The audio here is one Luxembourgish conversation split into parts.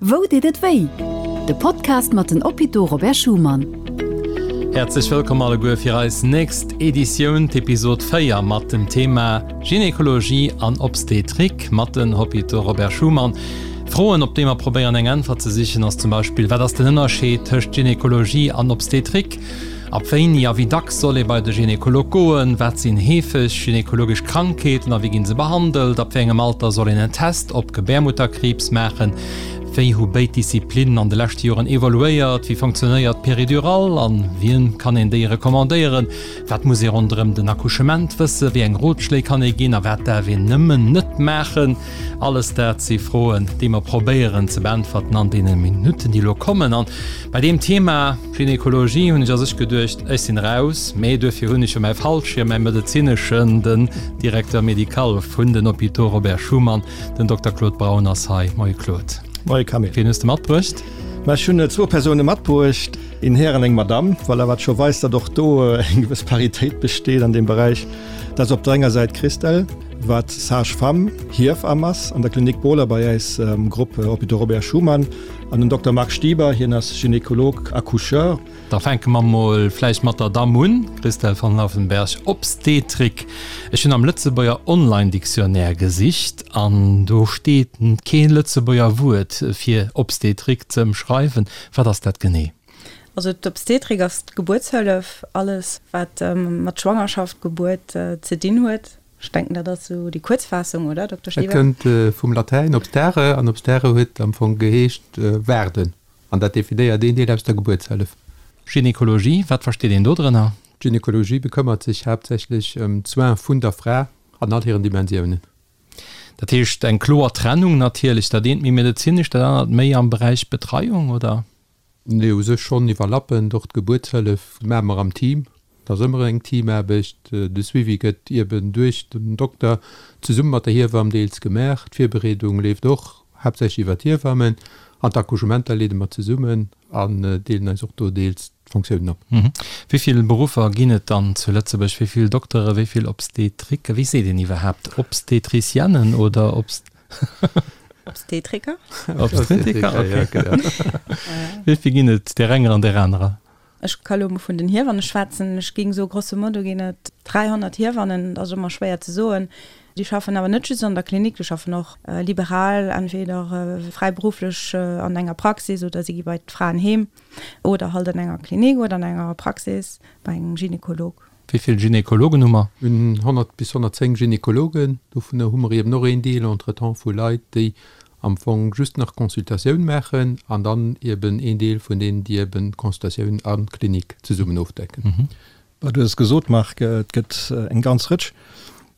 Wou deet et wéi? De Podcast mat den Hôpitaux Robert Schuman. Häerzlech wëllkomm alleguer fir eis nächst Editioun, d'Episod 4 mat dem Thema Gynekologie an Obstetrik mat den Hôpitaux Robert Schuman. Froen, op déi mer probéieren eng Äntwert ze sichen, ass zum Beispill, Wat ass den Ënnerscheed tëscht Gynekologie an Obstetrik? Ab wéini a wéi dacks soll ee bei de Gynekolog goen? Wat sinn heefeg gynekologesch Krankheeten a wéi ginn se behandelt? Ab wéi engem Alter soll een en Test op Gebärmutterkriibs maachen? Wéi hu béid Disziplinnen an de leschte Joren evoluéiert? Wéi funktionéiert d'Péridurale an wien kann een déi recommandéieren? Wat muss ee ronderëm den Accouchement wëssen? Wéi eng Rotschléi kann ee ginn a wat däerf een nëmmen net maachen? Alles dat si Froen, déi mer probéieren ze beäntwerten an deene Minutten, déi elo kommen. An bei deem Thema Gynekologie hunn ech a sech geduecht, ech sinn raus, mee duerfir hunn ech jo mäi Fallschierm, mäi medezineschen, den Directeur médical vun den Hôpitaux Robert Schuman, den Dokter Claude Braun ass hei. Moie Claude. Moie Camille. Wien hues de matbruecht? Ma ech hunn zwou Persoune matbruecht, een Här an eng Madamm. Voilà, wat scho weist, datt och do eng gewëss Paritéit besteet an deem Beräich. Dat ass op der enger Säit d'Christelle, wat Sage-femme, Hiewamm ass an der Klinik Bohler bei äis am Grupp Hôpitaux Robert Schuman, an den Dokter Marc Stieber, hien ass Gynécologue accoucheur. Da fänke mer mol vläicht mat der Damm un, Christelle van Laufenberg, Obstetrik. Ech hunn am Lëtzebuerger Online-Dictionnaire gesicht an do steet kee Lëtzebuerger Wuert fir Obstetrik ze ëmschreiwen. Wat ass dat genee? Also d'Obstetrik ass d'Gebuertshëllef, alles wat mat Schwangerschaft, Gebuert ze dinn huet. Ech denken dat ass esou déi Kuerzfaassung, oder Dokter Et Stieber? kënnt vum Latäin obstare an obstare huet am Fong geheescht waarden an dat definéiert een Deel aus der Gebuertshëllef. Gynekologie, wat versteet een do drënner? D'Gynekologie bekëmmert sech haaptsächlech ëm d'Soins vun der Fra an all hiren Dimensiounen. Dat heescht eng kloer Trennung natierlech, dat eent méi medezinesch, dat anert méi am Beräich Betreiung, oder? Nee, u sech schonn iwwerlappend. Och d'Gebuertshëllef maache mer am Team. Dat ass ëmmer eng Teamaarbecht. De Suivi gëtt ieben duerch den Dokter zesumme mat der Hiewamm deels gemaach. D'Virbereedung leeft och haaptsächlech iwwer d'Hiewammen. An d'Accouchementer leede mer zesummen an deelen eis och do deels d'Fonctiounen op. Wéi vill Beruffer ginn et dann zu Lëtzebuerg? Wéi vill Dokteren, wéi vill Obstetriken? Wéi seet een iwwerhaapt? Obstetricienen oder Obst. Obstetriker. Obstetriker, okay. Wéi vill ginn et där enger an där anerer? Ech ka lo mol vun den Hiewanne schwätzen. Ech géing soe grosso modo ginn et 300 Hiewannen. Dat ass ëmmer schwéier ze soen. Déi schaffen awer net just an der Klinik, déi schaffen och liberal, entweder fräiberufflech an enger Praxis oder si gi bei d'Fraen heem oder halt an enger Klinik oder an enger Praxis bei engem Gynekolog. Wéi vill Gynekologen hu mer? Mir hunn 100 bis 110 Gynekologen. Dovunner hu mer eben och een Deel entretemps vu Leit, déi am Fong just nach Consultatioun maachen an dann eben een Deel vun deenen, déi eben Consultatioun a Klinik zesummen ofdecken. Du hues et gesot, Marc, et gëtt eng ganz Rëtsch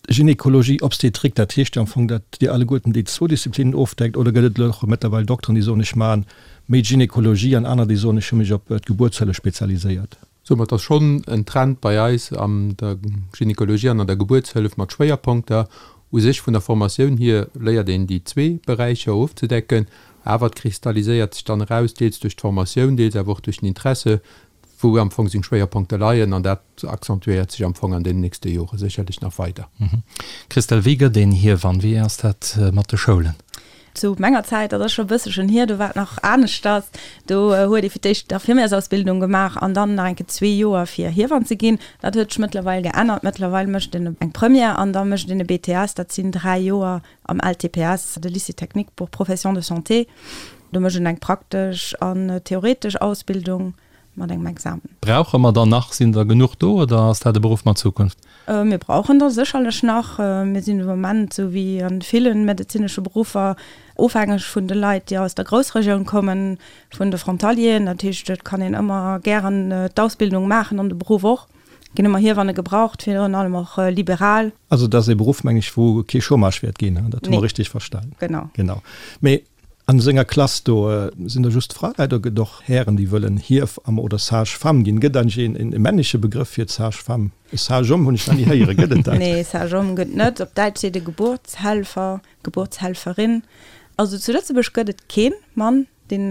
Gynekologie, Obstetrik. Dat heescht jo am Fong, datt Dir alleguerten déi zwou Disziplinnen ofdeckt. Oder gëtt et elo och mëttlerweil Dokteren, déi soen, ech maachen méi Gynekologie an aner, déi soen, ech hu mech op d'Gebuertshëllef spezialiséiert? Soumat ass schonn en Trend bei eis an der Gynekologie an an der Gebuertshëllef mat Schwéierponkter. U sech vun der Formatioun hier léiert een déi zwee Beräicher ofzedecken, awer et kristalliséiert sech dann eraus, deels duerch d'Formatioun, deels awer och duerch den Interesse, wou am Fong seng Schwéierponkte leien an dat accentuéiert sech am Fong an deenen nächste Jore sécherlech nach weider. Christelle, wéi gëtt een Hiewann? Wéi ass dat mat de Schoulen? Zu menger Zäit, dat ass scho e bësselchen hier, do war et nach aneschters. Do huet ee fir d'éischt d'Infirmièrsausbildung gemaach an dann nach eng Kéier zwee Joer fir Hiewann ze ginn. Dat huet sech mëttlerweil geännert. Mëttlerweil mécht een eng Première an da mécht een e BTS, dat sinn dräi Joer am LTPS, de Lycée technique pour professions de santé. Do mécht een eng praktesch an theoretesch Ausbildung. mat engem Examen. Brauche mer der nach? Sinn der genuch do oder ass dat e Beruff mat Zukunft? Mir brauchen der sécherlech nach. Mir sinn de Moment, esou wéi a ville medezinesche Beruffer, ofhängeg vun de Leit, déi aus der Groussregioun kommen, vun de Frontalieren. Dat heescht, et kann een ëmmer gären d'Ausbildung maachen an de Beruff och. Et ginn ëmmer Hiewanne gebraucht, virun allem och liberal. Also et ass ee Beruff, meng ech, wou kee Chômage wäert ginn, dat hu mer richteg verstan? Genau. Genau. Mee An senger Klass do sinn der just Fraleit oder gëtt och Hären déi wëllen Hiewamm oder Sage-femme ginn? Gëtt eigentlech een e männleche Begrëff fir d'Sage-femme? E Sage-homme hunn ech nach ni héieren, gëtt et dat? Nee, Sage-homme gëtt net. Op Däitsch seet e Geburtshelfer, Geburtshelferin. Also zu Lëtzebuerg gëtt et kee Mann deen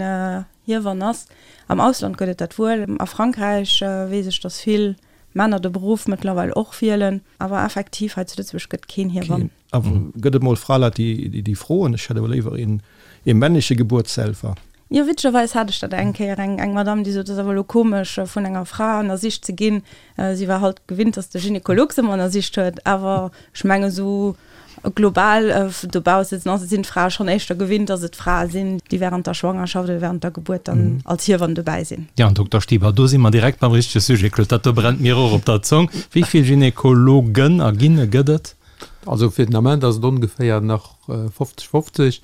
Hiewann ass. Am Ausland gëtt et dat wuel. A Frankräich weess ech, datt vill. Männer de Beruff mëttlerweil och wielen. Awer effektiv, hei zu Lëtzebuerg gëtt keen Hiewamm. Awer gëtt et mol Fraleit, déi déi froen, ech hätt awer léiwer een ee männleche Gebuertshelfer? Jo, witzegerweis hat ech dat eng Kéier, eng eng Madame, déi sot, et ass awer elo komesch, vun enger Fra ënnersicht ze ginn. Si war halt gewinnt, datt de Gynekolog se ëmmer ënnersicht huet. Awer ech mengen, esou global dobausse sinn d'Frae schonn éischter gewinnt, datt et Frae sinn, déi wärend der Schwangerschaft oder wärend der Gebuert dann als Hiewann dobäi sinn. Jo, an Dokter Stieber, do si mer direkt beim richtege Sujet. Claude, dat do brennt mir och op der Zong. Wéi vill Gynekologen a Ginne gëtt et? Also fir den Ament ass et ongeféier nach 50, 50.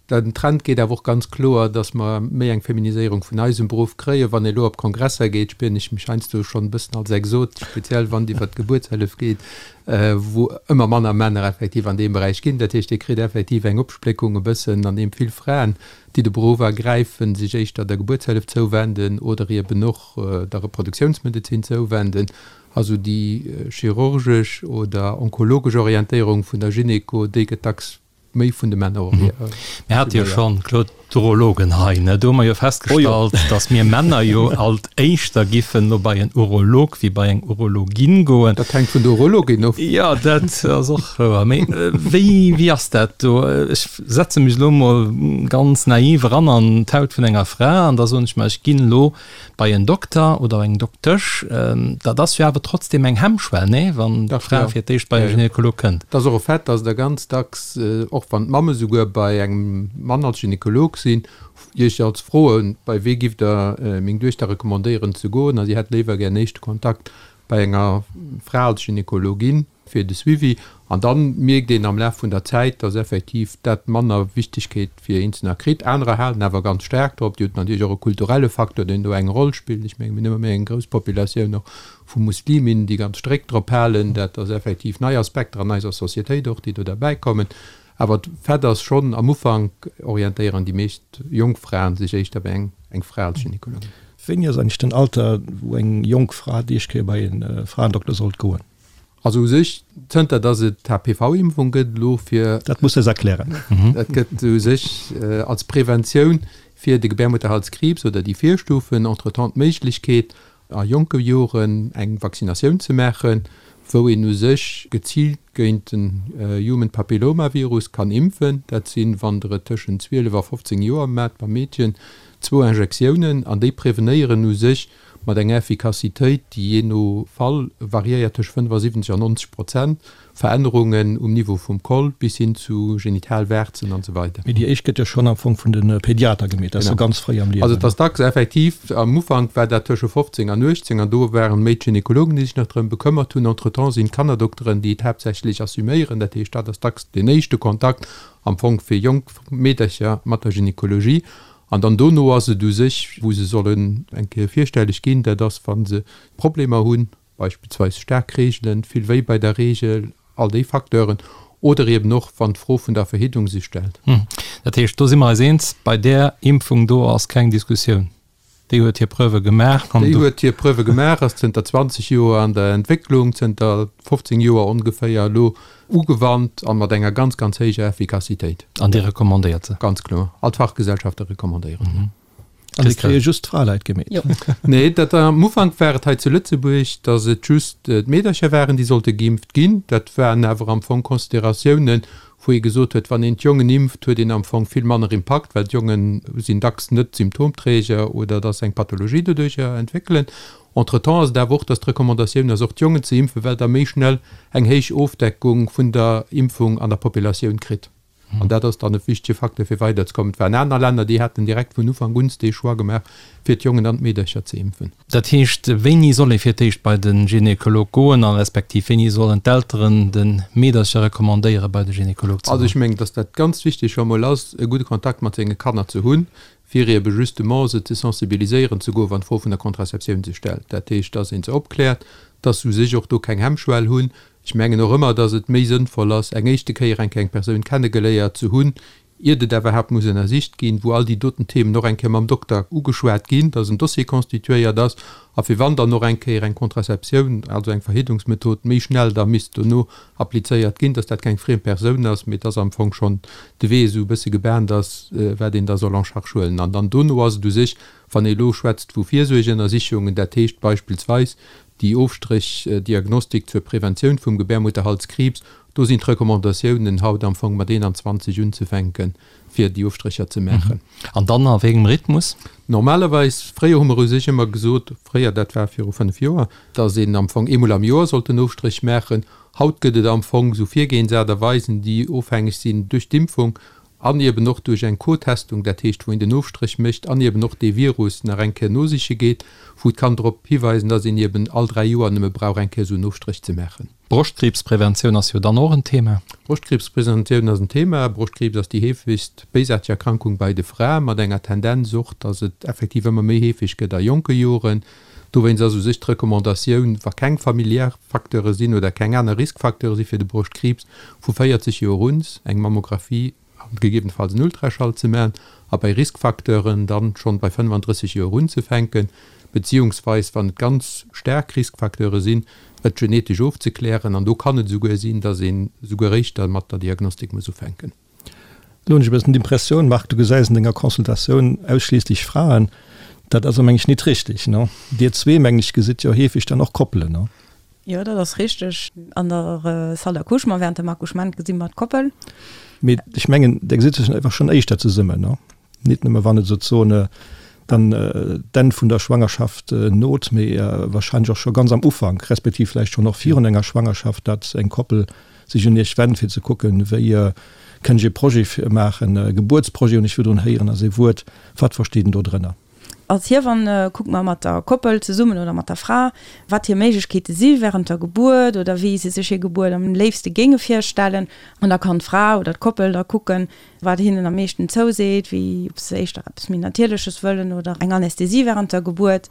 Den Trend geet awer och ganz kloer, datt mer méi eng Feminiséierung vun eisem Beruff kréien. Wann ee elo op Kongresser geet, spieren ech mech heiansdo schonn e bëssen als Exot, speziell wann et iwwert d'Gebuertshëllef geet, wou ëmmer manner Männer effektiv an deem Beräich ginn. Dat heescht, Dir kritt effektiv eng Opspléckung e bëssen, an deem vill Fraen, déi de Beruff ergräifen, sech éischter der Gebuertshëllef zouwenden oder eben och der Reproduktiounsmedezin zouwenden. Also déi chirurgesch oder onkologesch Orientéierung vun der Gynéco, déi gëtt dacks méi vun de Männer assuméiert. Mir hate jo schonn, Claude, d'Urologen hei, ne? Do hu mer jo festgestallt, datt mir Männer jo alt éischter giffen no bei en Urolog wéi bei eng Urologin goen. Dat hänkt vun der Urologin of. Jo, dat ass och wouer. Mee wéi, wéi ass dat do? Ech setze mech elo mol ganz naiv eran an d'Haut vun enger Fra an da soen ech mer, ech ginn elo Bei en Dokter oder eng Doktesch, dat ass jo awer trotzdem eng Hemmschwell, nee? Wann d'Fra fir d'éischt bei e Gynekolog kënnt. Et ass och e Fait, dass der ganz dacks, och wann d'Mamme souguer bei engem Mann als Gynekolog sinn, Iech als froen, bei wee giff Der meng Duechter recommandéieren ze goen? A si hätt léiwer gär en éischte Kontakt bei enger Fra als Gynekologin. fir de Suivi. An dann mierkt een am Laf vun der Zäit, dass effektiv dat manner Wichtigkeet fir Eenzelner kritt. Anerer halen awer ganz staark drop. Déi hunn natierlech och e kulturelle Facteur, deen do eng Roll spillt. Ech menge mir hunn ëmmer méi eng grouss Populatioun och vu Musliminnen, déi ganz strikt drop halen. Dat ass effektiv nei Aspekter an eiser Societéit och, déi do derbäikommen. Awer Fait ass schonn, am Ufank orientéieren déi meescht jonk Fraen sech éischter bei eng Fra als Gynekologin. Wéini ass eigentlech den Alter, wou eng jonk Fra déi éischt Kéier bei e Fraendokter sollt goen? Also u sech, zënter datt et d'HPV-Impfung gëtt elo fir. Dat muss de eis erklären. Dat gëtt u sech als Preventioun fir de Gebärmutterhalskriibs oder déi Virstufen entretemps d'Méiglechkeet, a jonke Joren eng Vaccinatioun ze maachen, wou een u sech geziilt géint den Human Papillomavirus kann impfen. Dat sinn, wann Der et tëschent 12 a 15 Joer maacht beim Meedchen, zwou Injektiounen an déi prevenéieren u sech mat enger Effikassitéit, déi jee no Fall variéiert tëscht 75 an 90 Prozent, Verännerungen um Niveau vum Col bis hin zu Genitalwarzen an esou weider. Mee déi éischt gëtt jo schonn am Fong vun de Pediater gemeet, dat ass jo ganz fréi am Liewen. Also et ass dacks effektiv, am Ufank war dat tësche 15 an 18 an do waren méi d'Gynekologen, déi sech nach drëm bekëmmert hunn. Entretemps sinn d'Kannerdokteren, déi et haaptsächlech assuméieren. Dat heescht, dat ass dacks deen éischte Kontakt am Fong fir jonk Meedercher mat der Gynekologie. An dann dono ass et u sech, wou se sollen eng Kéier virstelleg ginn, dat ass, wa se Problemer hunn, beispillsweis staark Reegelen, vill Wéi bei der Reegel, all déi Facteuren, oder eben och, wann d'Fro vun der Verhiddung sech stellt. Dat heescht, do si mer eis eens, bei där Impfung do ass keng Diskussioun. Déi huet hir Preuve gemaach. Déi huet hir Preuve gemaach, ass zënter 20 Joer an der Entwécklung, zënter 15 Joer ongeféier elo ugewannt a mat enger ganz, ganz héijer Effikassitéit. An Dir recommandéiert se? Ganz kloer. All d'Fachgesellschafte recommandéieren se. An déi kréie just d'Fraleit gemeet? Jo. Nee, dat am Ufank war et hei zu Lëtzebuerg, datt et just d'Meedercher waren, déi sollte geimpft ginn. Dat waren awer am Fong Consideratiounen, wou ee gesot huet, wann een d'Jongen impft, huet een am Fong vill manner Impakt, well d'Jonge sinn dacks net Symptomträger oder datt se eng Pathologie doduercher entwéckelen. Entretemps ass et awer och, datt d'Recommandatioun ass, och d'Jongen ze impfen, well Der méi schnell eng héich Ofdeckung vun der Impfung an der Populatioun kritt. An dat ass dann e wichtege Facteur, fir weiderzekommen. Et waren aner Länner, déi haten direkt vun Ufank un dee Choix gemaach, fir d'Jongen an d'Meedercher ze impfen. Dat heescht, wéini soll ee fir d'éischt bei de Gynekolog goen a respektiv wéini sollen d'Elteren de Meedercher recommandéieren, bei de Gynekolog ze goen? Also ech mengen, dass dat ganz wichteg scho mol ass, e gudde Kontakt mat senge Kanner ze hunn, fir ebe justement se ze sensibiliséieren ze goen, wann d'Fro vun der Contraceptioun sech stellt. Dat heescht, dass ee se opkläert, dass se u sech och do keng Hemmschwell hunn. Ech mengen och ëmmer, dass et méi sënnvoll ass, eng éischte Kéier eng kleng Persoun kennegeléiert ze hunn. iert et iwwerhaapt muss ënnersicht ginn, wou all déi doten Themen och eng Kéier mam Dokter ugeschwat ginn, dass en Dossier constituéiert ass a fir wann dann och eng Kéier eng Contraceptioun, also eng Verhiddungsmethod, méi schnell da misst dono applizéiert ginn, dass dat keng friem Persoun ass, mee dass am Fong schonn de Wee esou e bësse gebahnt ass, wat een da soll en charge huelen. An dann dono ass et u sech, wann ee elo schwätzt vu Virsuergeënnersichungen, dat heescht beispillsweis déi Ofstréchdiagnostik zur Preventioun vum Gebärmutterhalskriibs, do sinn d'Recommandatiounen haut am Fong mat 21 unzefänken, fir déi Ofstrécher ze maachen. An dann a wéi engem Rhythmus? Normalerweis, fréier hu mer u sech ëmmer gesot, fréier, dat war viru 5 Joer, dass een am Fong eemol am Joer sollt en Ofstréch maachen. Haut gëtt et am Fong esou Virgehensaart a Weisen, déi ofhängeg sinn duerch d'Impfung an eben och duerch eng Co-Testung, dat heescht wou een den Ofstréch mécht an eben och dee Virus nach eng Kéier nosiche geet, wou et kann drop hiweisen, dass een eben all 3 Joer nëmme brauch eng Kéier esou en Ofstréch ze maachen. Broschtkriibspreventioun ass jo dann och en Thema. Broschtkriibspreventioun ass en Thema. Broschtkriibs ass déi heefegst béisaarteg Erkrankung bei de Frae, mat enger Tendenz och, dass et effektiv ëmmer méi heefeg gëtt a jonke Joren. Dowéinst ass u sech d'Recommandatioun, wa keng familiär Facteure sinn oder keng aner Riskfacteure si fir de Broschtkriibs, vu 40 Joer un eng Mammographie a gegebenfalls en Ultraschall ze maachen a bei Riskfacteuren dann schonn bei 35 Joer unzefänken, beziehungsweis wann et ganz staark Riskfacteure sinn, et genetesch ofzeklären. An do kann et esouguer sinn, dass een esouguer éischter mat der Diagnostik muss ufänken. Elo hunn ech e bëssen d'Impressioun, Marc, du gesäis an denger Consultatioun ausschliisslech Fraen. Dat ass, meng ech, nit richtig, ne? Dir zwee, mengen ech, gesitt jo heefeg dann och Koppelen, ne? Jo, dat ass richtig. An der Salle d'accouchement, während dem Accouchement gesi mer d'Koppel. Mee ech mengen, der gesitt sech einfach schonn éischter zesummen, ne? Nit nëmme wann et souzesoen dann d'Enn vun der Schwangerschaft not, mee wahrscheinlech och scho ganz am Ufank, respektiv vläicht schonn och virun enger Schwangerschaft, datt eng Koppel sech un Iech wennt, fir ze kucken, wéi kënnt ech e Projet maachen, e Gebuertsprojet hunn ech virdrun héieren, ass ee Wuert. Wat versteet een do drënner? Als Hiewann kucke mer mat der Koppel zesummen oder mat der Fra, wat hir Méiglechkeete si wärend der Gebuert oder wéi se sech hir Gebuert am léifste géinge virstellen. An da kann d'Fra oder d'Koppel da kucken, wat hinnen am meeschten zouseet, wéi ob se éischter eppes méi Natierleches wëllen oder eng Anästhesie wärend der Gebuert,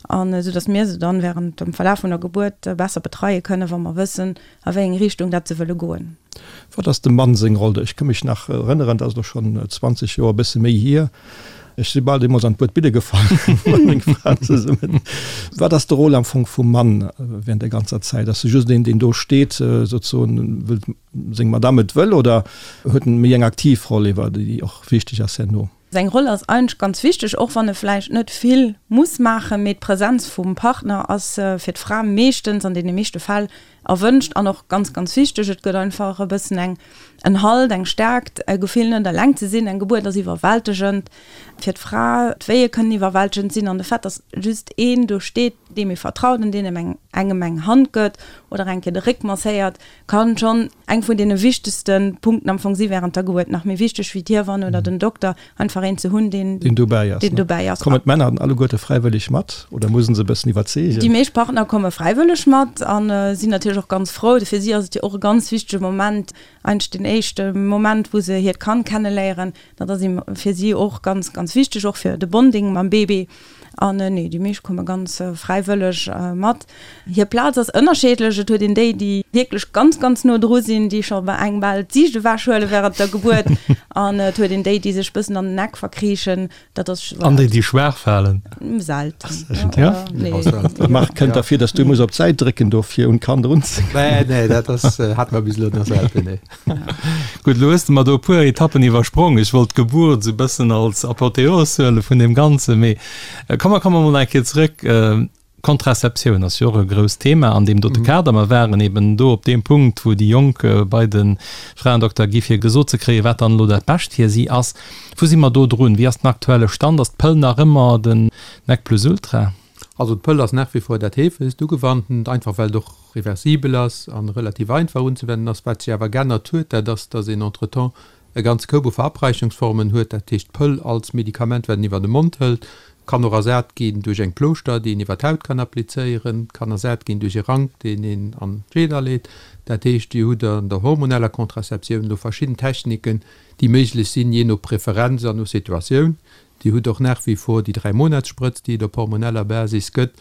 an esou datt mir se dann wärend dem Verlaf vun der Gebuert besser betreie kënnen, wa mer wëssen, a wéi eng Richtung dat se wëlle goen. Wat ass dem Mann seng Roll do? Ech ka mech nach erënneren, dat ass elo schonn 20 Joer, e bësse méi hier, ech si bal deemools an d'Buedbidde gefall mat menger Fra zesummen. Wat ass de Rôle am Fong vum Mann während der ganzer Zäit? Ass e just een, deen do steet, sozesoen, wëll seng Madame et wëll, oder huet en méi eng aktiv Roll ewer, déi och wichteg ass herno? Seng Roll ass eigentlech ganz wichteg, och wann e vläicht net vill muss maachen, mee d'Präsenz vum Partner ass fir d'Fra meeschtens, an deene meeschte Fäll, erwënscht an och ganz, ganz wichteg. Et gëtt einfach e bëssen eng, en Halt, eng Stärkt, e Gefill net eleng ze sinn. Eng Gebuert ass iwwerwältegend fir d'Fra, d'Wéie kënnen iwwerwältegend sinn an de Fait, dass just een do steet, deem ee vertraut an deen engem engem eng Hand gëtt oder eng Kéier de Réck masséiert, kann schonn eng vun deene wichtegste Punkten am Fong si während der Gebuert, nach méi wichteg wéi d'Hiewann oder den Dokter, einfach een ze hunn, deen Deen dobäi ass. Deen dobäi ass. Kommen d'Männer dann alleguerte fräiwëlleg mat oder muss en se e bëssen iwwerzeegen? Déi meescht Partner komme fräiwëlleg mat a sinn natierlech och ganz frou. Fir si ass et jo och e ganz wichtege Moment, eigentlech deen éischte Moment, wou se hiert Kand kenneléieren. Dat ass fir si och ganz, ganz wichteg, och fir de Bonding mam Baby. An nee, déi meescht komme ganz fräiwëlleg mat. Hir Plaz ass ënnerscheedlech. Et huet een déi, déi wierklech ganz, ganz no dru sinn, déi scho bei engem bal d'Siicht ewechhuele wärend der Gebuert. An et huet een déi, déi sech bëssen an den Eck verkriichen. Dat ass. An déi, déi schwaach falen? Selten. Ja? Nee. Marc, kënnt derfir, dass du muss op d'Säit drécken do fir un d'Kand erunzekommen. Nee, nee, dat ass, hat mer bis elo nach selten, nee. Gutt, elo hues de mer do e puer Etappen iwwersprong. Ech wollt d'Gebuert esou e bëssen als Apotheos huele vun deem Ganzen, mee komm, mer komme mol eng Kéier zrëck. Contraceptioun ass jo och e grousst Thema an deem dote Kader. Mer waren eben do op deem Punkt, wou déi Jonk bei de Fraendokter gi fir gesot ze kréien, wat dann elo dat Bescht fir si ass. Wou si mer do drun? Wéi ass den aktuelle Stand? Ass d'Pëll nach ëmmer den Nec plus ultra? Also d'Pëll ass nach wie vor dat heefegst ugewanntent, einfach well et och reversibel ass an relativ einfach unzewennen ass. Wat sech awer geännert huet, dat ass, dass een entretemps e ganze Koup u Verabreichungsformen huet. Dat heescht, d'Pëll als Medikament, wat een iwwer de Mond hëlt, kann och ersat ginn duerch eng Plooschter, déi een iwwer d'Haut kann applizéieren, kann ersat ginn duerch e Rank, deen een an d'Scheed aleet. Dat heescht, Dir hutt an der hormoneller Contraceptioun elo verschidden Techniken, déi méiglech sinn, jee no Preferenz an no Situatioun. Dir hutt och nach wie vor déi Dräimonatssprëtz, déi et op hormoneller Basis gëtt,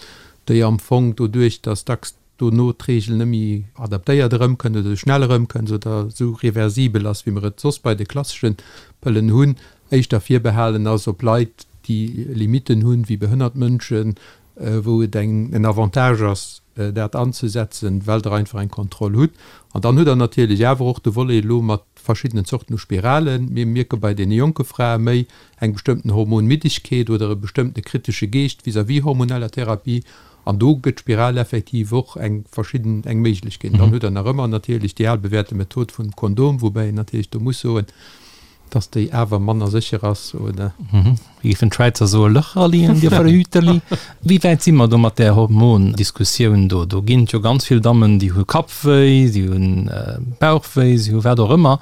déi am Fong doduerch, dass dacks. dono d'Reegel net méi adaptéiert erëmkënnt oder esou schnell erëmkënnt oder esou reversibel ass, wéi mer et soss bei de klassesche Pëllen hunn, éischter virbehalen ass op Leit, déi Limitten hunn, wéi behënnert Mënschen, wou et eng en Avantage ass, dat anzesetzen, well Der einfach eng Kontroll hutt. An dann hutt Der natierlech awer och de Volet elo mat verschiddenen Zorten u Spiralen. Mir mierke bei deene jonke Frae méi eng bestëmmten Hormonmiddegkeet oder e bestëmmtene kritesche Geescht vis-à-vis hormoneller Therapie. An do gëtt d'Spiral effektiv och eng verschidden, eng Méiglechkeet. Dann hutt Der nach ëmmer natierlech déi al bewährte Method vum Kondom, woubäi een natierlech do muss soen, dass déi awer manner sécher ass, oder? Wéi géifen d'Schwäizer soen, Löcherli an dir Verhüterli. Wéi wäit si mer do mat där Hormondiskussioun do? Do ginn et jo ganz vill Dammen, déi hu Kappwéi, si hu Bauchwéi, si hu wat och ëmmer.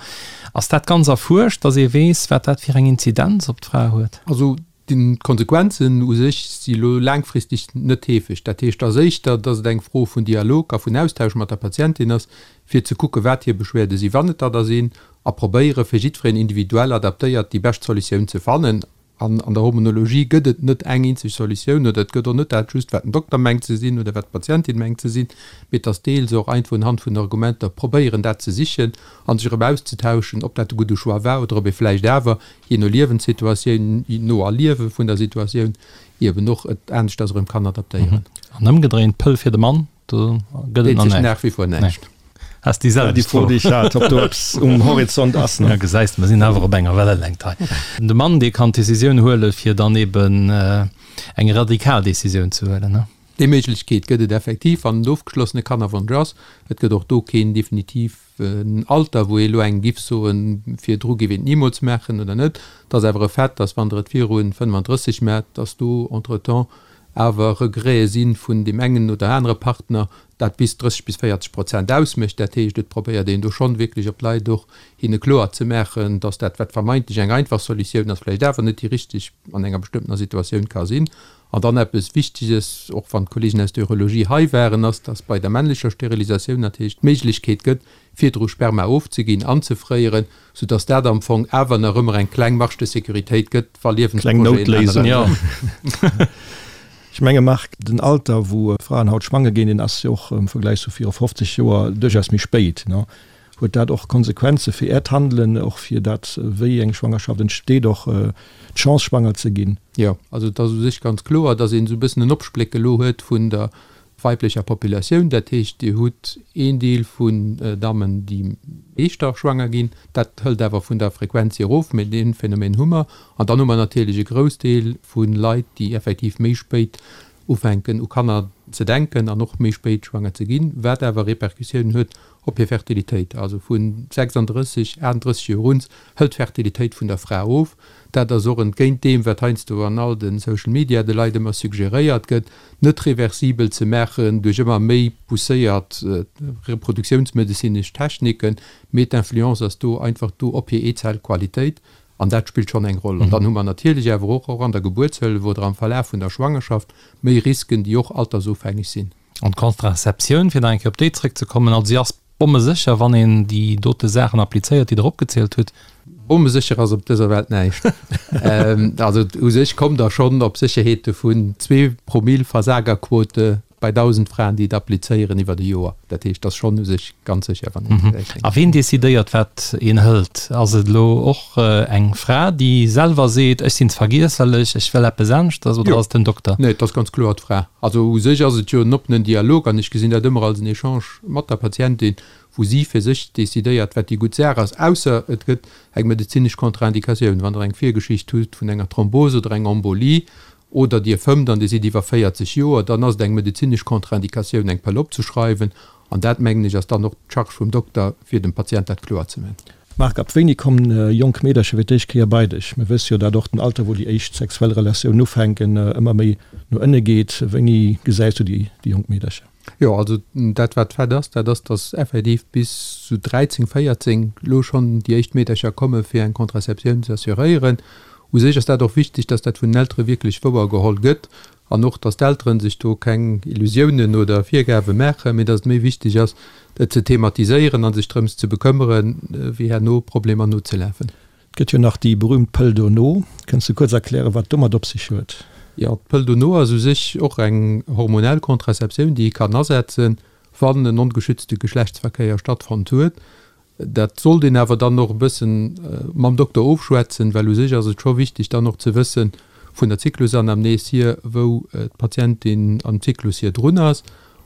Ass dat ganz erfuerscht, dass ee weess, wat dat fir eng Inzidenz op d'Fra huet? Also D'Konsequenzen u sech si lo laangfristeg net heefeg. Dat heescht, ass éischter, dass et eng Fro vun Dialog a vun Austausch mat der Patientin ass, fir ze kucken, wat hir Beschwerde sinn, wann et der da sinn, a probéiere fir jiddwereen individuell adaptéiert déi bescht Solutioun ze fannen. An an der Hormonologie gëtt et net eng eenzeg Solutioun oder et gëtt och net dat just, wat den Dokter mengt ze sinn oder wat d'Patientin mengt ze sinn, mee et ass deels och einfach unhand vun Argumenter probéieren, dat ze sichen a sech erëm auszetauschen, ob dat de gudde Choix war oder ob ee vläicht awer jee no Liewenssituatioun, no Erliewe vun der Situatioun, eben och et aneschters erëm kann adaptéieren. An ëmgedréint, d'Pëll fir de Mann, do gëtt et nach näischt. Nach wie vor näischt. Has déi selwecht Fro, déi ech hat, ob do eppes um Horizont ass. Ja, gesäis de, mer sinn awer op enger Wellelängt hei. De Mann, dee kann d'Decisioun huelen, fir dann eben eng radikal Decisioun ze huelen, ne? Déi Méiglechkeet gëtt et effektiv, wann en ofgeschlossene Kannerwonsch ass. Et gëtt och do keen definitiv En Alter, wou ee elo engem giff soen, virdru giff een et nimools maachen oder net. Et ass awer e Fait, dass wann Der et viru 35 maacht, dass do entretemps awer Regrete si vun deem engen oder anere Partner, dat bis 30 bis 40 Prozent ausmécht. Dat heescht, et probéiert een do schonn wierklech op d'Leit och hinne kloer ze maachen, dass dat, wat vermeintlech eng einfach Solutioun ass, vläicht awer net déi richteg an enger bestëmmtener Situatioun ka sinn. An dann eppes Wichteges, och wann d'Kollegen aus der Urologie hei waren, ass, dass bei der männlecher Sterilisatioun natierlech d'Méiglechkeet gëtt, virdru Sperma ofzeginn, anzefréieren, soudass dat am Fong awer nach ëmmer eng kleng Marge de sécurité gëtt, wa Kleng Liewensprojeten Noutléisung. änneren. Ech menge Marc, den Alter, wou Fraen haut schwanger ginn, deen ass jo och am Vergläich zu viru 50 Joer duerchaus méi spéit. Huet dat och Konsequenze fir Äert Handelen, och fir dat, wéi eng Schwangerschaft entsteet, och d'Chance schwanger ze ginn? Jo, also et ass u sech ganz kloer, datt een esou e bëssen en Opspléck elo huet vun der weiblecher Populatioun. Dat heescht, Dir hutt een Deel vun Dammen, déi éischter schwanger ginn. Dat hëlt awer vun der Frequenz hier erof, mee dee Phänomen hu mer. An dann hu mer natierlech e Groussdeel vu Leit, déi effektiv méi spéit ufänken u Kanner ze denken an och méi spéit schwanger ze ginn, wat awer Repercussiounen huet op hir Fertilitéit. Also vu 36, 38 Joer un hëlt d'Fertilitéit vun der Fra of. Dat ass och entgéint deem, wat heiansdo an all de Social Media de Leit ëmmer suggeréiert gëtt, net reversibel ze maachen duerch ëmmer méi pousséiert reproduktiounsmedezinesch Techniken, mee d'Influence ass do einfach do op hir Eezellqualitéit An dat spillt schonn eng Roll. An dann hu mer natierlech awer och, och an der Gebuertshëllef oder am Verlaf vun der Schwangerschaft, méi Risken, déi och altersofhängeg sinn. An d'Contraceptioun, fir nach eng Kéier op déi zrëckzekommen, also si ass bommesécher, wann een déi dote Saachen applizéiert, déi Der opgezielt hutt. Bommesécher ass op dëser Welt näischt. Also u sech kommt Der schonn op Sécherheete vun zwee Promill Versagerquote Bei 1.000 Fraen, déi et applizéieren iwwert e Joer. Dat heescht, et ass schonn u sech ganz sécher, wann een et réischt. A ween decidéiert, wat een hëlt? Ass et elo och eng Fra, déi selwer seet, ech sinn vergiesserlech, ech wëll eppes aneschters, oder ass et den Dokter? Nee, et ass ganz kloer d'Fra. Also u sech ass et jo en oppenen Dialog an ech gesinn dat ëmmer als en Echange mat der Patientin, wou si fir sech decidéiert, wat déi gutt Saach ass, ausser et gëtt eng medezinesch Contre-indicatioun. Wann Der eng Virgeschicht hutt vun enger Thrombose oder enger Embolie, oder Dir fëmmt an Dir sidd iwwer 40 Joer, dann ass et eng medezinesch Contre-indicatioun, eng Pëll opzeschreiwen. An dat, mengen ech, ass dann och d'Charge vum Dokter, fir dem Patient dat kloer ze man. Marc, ab wéini kommen jonk Meedercher fir d'éischt Kéier bei dech? Mir wësse jo, dat och den Alter, wou déi éischt sexuell Relatioun ufänken, ëmmer méi no ënne geet. Wéini gesäis du déi jonk Meedercher? Jo, also dat wat Fait ass, dat ass, datt effektiv bis sou 13, 14 elo schonn déi éischt Meedercher komme fir eng Contraceptioun ze assuréieren. U sech ass dat och wichteg, datt dat vun den Eltere wierklech wouer geholl gëtt an och, datt d'Eltere sech do keng Illusiounen oder Virgabe maachen, mee datt et méi wichteg ass, et ze thematiséieren a sech drëms ze bekëmmeren, wéi herno Problemer nozelafen. Et gëtt jo nach déi berühmt Pëll dono. Kënns de kuerz erklären, wat domat op sech huet? Jo, d'Pëll dono ass u sech och eng hormonell Contraceptioun, déi ee kann asetzen. Wann en ongeschützte Geschlechtsverkéier stattfonnt huet. Dat sollt een awer dann och e bëssen mam Dokter ofschwätzen, well u sech ass et scho wichteg dann och ze wëssen, vun der Zyklusanamnes hier, wou d'Patientin am Zyklus hier drun ass.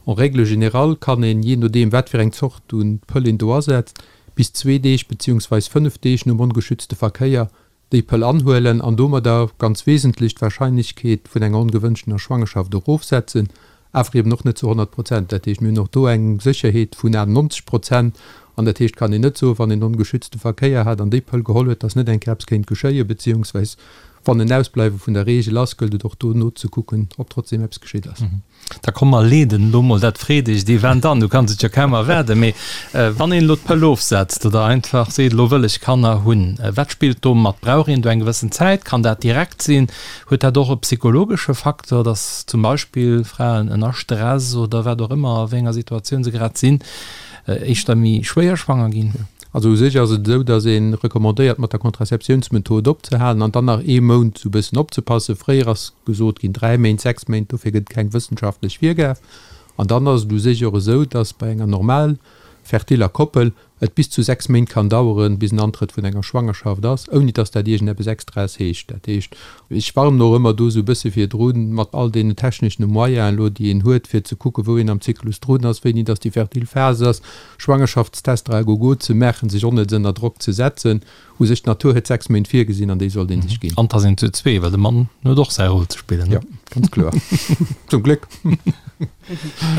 En règle générale kann een, jee nodeem wat fir eng Zort un Pëll een do asetzt, bis zwee Deeg beziehungsweis 5 Deeg nom ongeschützte Verkéier déi Pëll anhuelen an domadder ganz wesentlech d'Wahrscheinlechkeet vun enger ongewënschtener Schwangerschaft erofsetzen, awer eben och net zu 100 Prozent. Dat heescht, mir hunn och do eng Sécherheet vun 98 Prozent an dat heescht, kann een net soen, wann een ongeschützte Verkéier hat an déi Pëll geholl huet, dass net eng Kéier eppes kéint geschéien, beziehungsweis wann en Ausbleiwe vun der Reegel ass, gëllt et och do nozekucken, ob trotzdem eppes geschitt ass. Da komm mer leeden elo mol dat freedegt Event an. Du kanns et jo kaum erwaarden. Mee wann een elo d'Pëll ofsetzt oder einfach seet, elo wëll ech Kanner hunn, wat spillt do mat? Brauch een do eng gewëssen Zäit? Kann dat direkt sinn? Huet dat och e psychologesche Facteur, datt zum Beispill Fraen ënner Stress oder wat och ëmmer, a wéi enger Situatioun se grad sinn, éischter méi schwéier schwanger ginn? Also u sech ass et esou, datt ee recommandéiert mat der Contraceptiounsmethod opzehalen an dann nach ee Mount esou e bëssen opzepassen. Fréier ass gesot ginn 3 Méint, 6 Méint, dofir gëtt et keng wëssenschaftlech Virgab. An dann ass et u sech och esou, datt bei enger normal fertiller Koppel et bis zu 6 Méint kann daueren, bis en Antrëtt vun enger Schwangerschaft ass, ouni datt dat iergendeppes Extraes heescht. Dat heescht, ech warnen och ëmmer do esou e bësse virdrun, mat all deenen techneschene Moyenen elo, déi een huet, fir ze kucken, wou een am Zyklus drun ass, wéini datt déi fertil Phas ass, Schwangerschaftstester à gogo ze maachen, sech onnëtz ënner Drock ze setzen. U sech, d'Natur huet 6 Méint virgesinn an déi sollt ee sech ginn. An 't ass een zu zwee, well de Mann huet och säi Rôle ze spillen, ne? Jo, ganz kloer. Zum Gléck.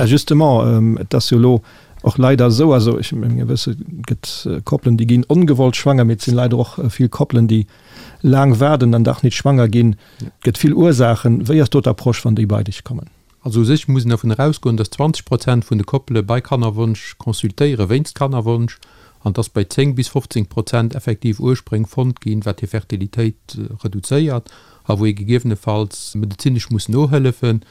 Justement, et ass jo elo och leider esou, also ech menge wësse, et gëtt Koppelen, déi ginn ongewollt schwanger, mee et sinn leider och vill Koppelen, déi laang waarden an dach nit schwanger ginn. Et gëtt vill Ursaachen. Wéi ass do d'Approche, wann déi bei dech kommen? Also u sech muss een dervun erausgoen, dass 20 Prozent vun de Koppele bei Kannerwonsch consultéiere wéinst Kannerwonsch an dass bei 10 bis 15 Prozent effektiv Urspréng fonnt ginn, wat hir Fertilitéit reduzéiert a wou ee gegebenefalls medezinesch muss nohëllefen.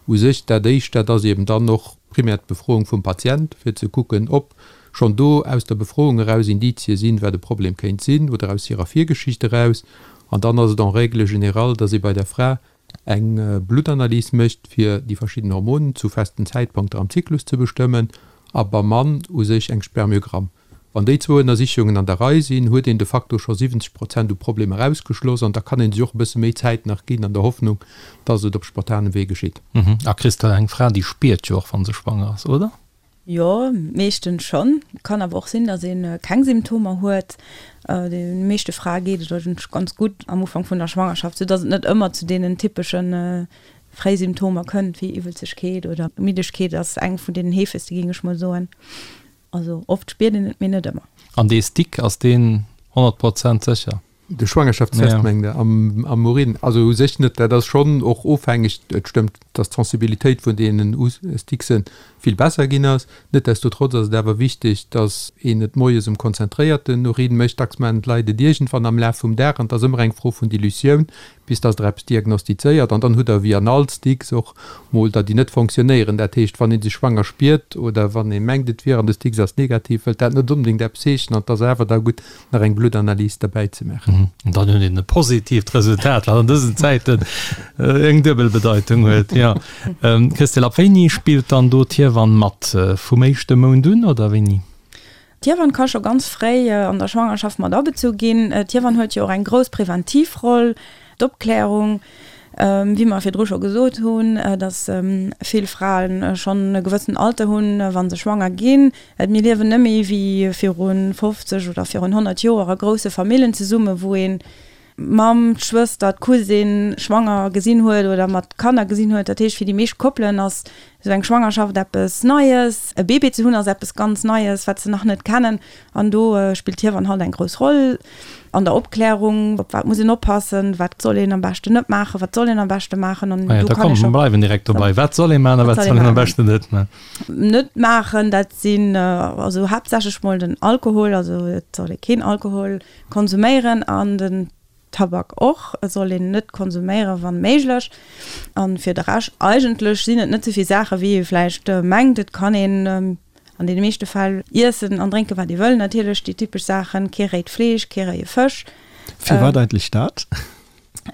U sech dat Éischt, dat ass eben dann och primär d'Befroung vum Patient, fir ze kucken, ob schonn do aus der Befroung eraus Indizie sinn, wat e Problem kéint sinn oder aus hirer Virgeschicht eraus. An dann ass et en règle générale, dass ee bei der Fra eng Bluttanalys mécht, fir déi verschidden Hormonen zu festen Zäitpunkter am Zyklus ze bestëmmen, a beim Mann u sech eng Spermiogramm. Wann déi zwou Ënnersichungen an der Rei sinn, huet een de facto scho 70 Prozent u Problemer ausgeschloss an da kann ee sech och e bësse méi Zäit nach ginn an der Hoffnung, dass et op spontanem Wee geschitt. A Christelle, eng Fra, déi spiert jo och, wa se schwanger ass, oder? Jo, meeschtens schonn. Kann awer och sinn, datt ee keng Symptomer huet. De meeschte Frae geet et eigentlech ganz gutt am Ufank vun der Schwangerschaft, sou datt et net ëmmer zu deenen typesche Fréisymptomer kënnt, wéi Iwwelzegkeet oder Middegkeet ass eng vun deenen heefegste, géing ech mol soen. Also oft spiert een et, mee net ëmmer. An dee Stick, ass deen 100 Prozent sécher? De Schwangerschaftstest mengt Der am Urin? Also u sech net. Dat ass schonn och ofhängeg. Et stëmmt, datt d'Sensibilitéit vun deenen Stickse vill besser ginn ass. Netdestotrotz ass et awer wichteg, datt een et moies um konzentréierten Urin mécht. Dacks maachen d'Leit et iergendwann am Laf vum Dag an et ass ëmmer eng Fro vun Dilutioun, bis datt Der eppes diagnostizéiert. An dann hutt Der wéi an all Sticks och mol der, déi net fonctionnéieren. Dat heescht, wann ee sech schwanger spiert oder wann ee mengt, et wier an de Sticks ass negativ, wëllt dat net onbedéngt eppes heeschen an et ass awer da gutt, nach eng Bluttanalys derbäi ze maachen. An dann huet een e positiivt Resultat, wat an dësen Zäiten eng duebel Bedeitung huet. Jo. Christelle, ab wéini spillt dann do d'Hiewann mat? Vum éischte Mount un oder wéini? D'Hiewann ka scho ganz fréi an der Schwangerschaft mat abezu ginn. D'Hiewann huet jo och eng grouss preventiv Roll, d'Opklärung, wéi mer virdru scho gesot hunn, datt vill Frae schonn e gewëssen Alter hunn, wa se schwanger ginn. Mir liewen net méi wéi viru 50 oder virun 100 Joer a grousse Famillen zesummen, wou een d'Mamm, d'Schwëster, d'Cousine schwanger gesinn huet oder mat Kanner gesinn huet. Dat heescht, fir déi meescht Koppelen ass esou eng Schwangerschaft eppes Neies. E Bébé ze hunn ass eppes ganz Neies, wat se nach net kennen. An do spillt d'Hiewann halt eng grouss Roll an der Opklärung, op wat muss een oppassen, wat soll een am beschten net maachen, wat soll een am beschte maachen. An do kann ee scho. Bleiwen direkt dobei. Wat soll ee maachen a wat soll een am beschten net maachen? Net maachen, dat sinn also haaptsächlech mol den Alkohol, also et soll ee keen Alkohol konsuméieren an den Tabak och soll een net konsuméieren, wann méiglech. An fir de Rescht eigentlech sinn et net souvill Saachen, wéi ee vläicht mengt. Et kann een an deene meeschte Fäll iessen an drénken, wat ee wëll. Natierlech déi typesch Saachen, kee réit Fleesch, kee réie Fësch. Firwat eigentlech dat?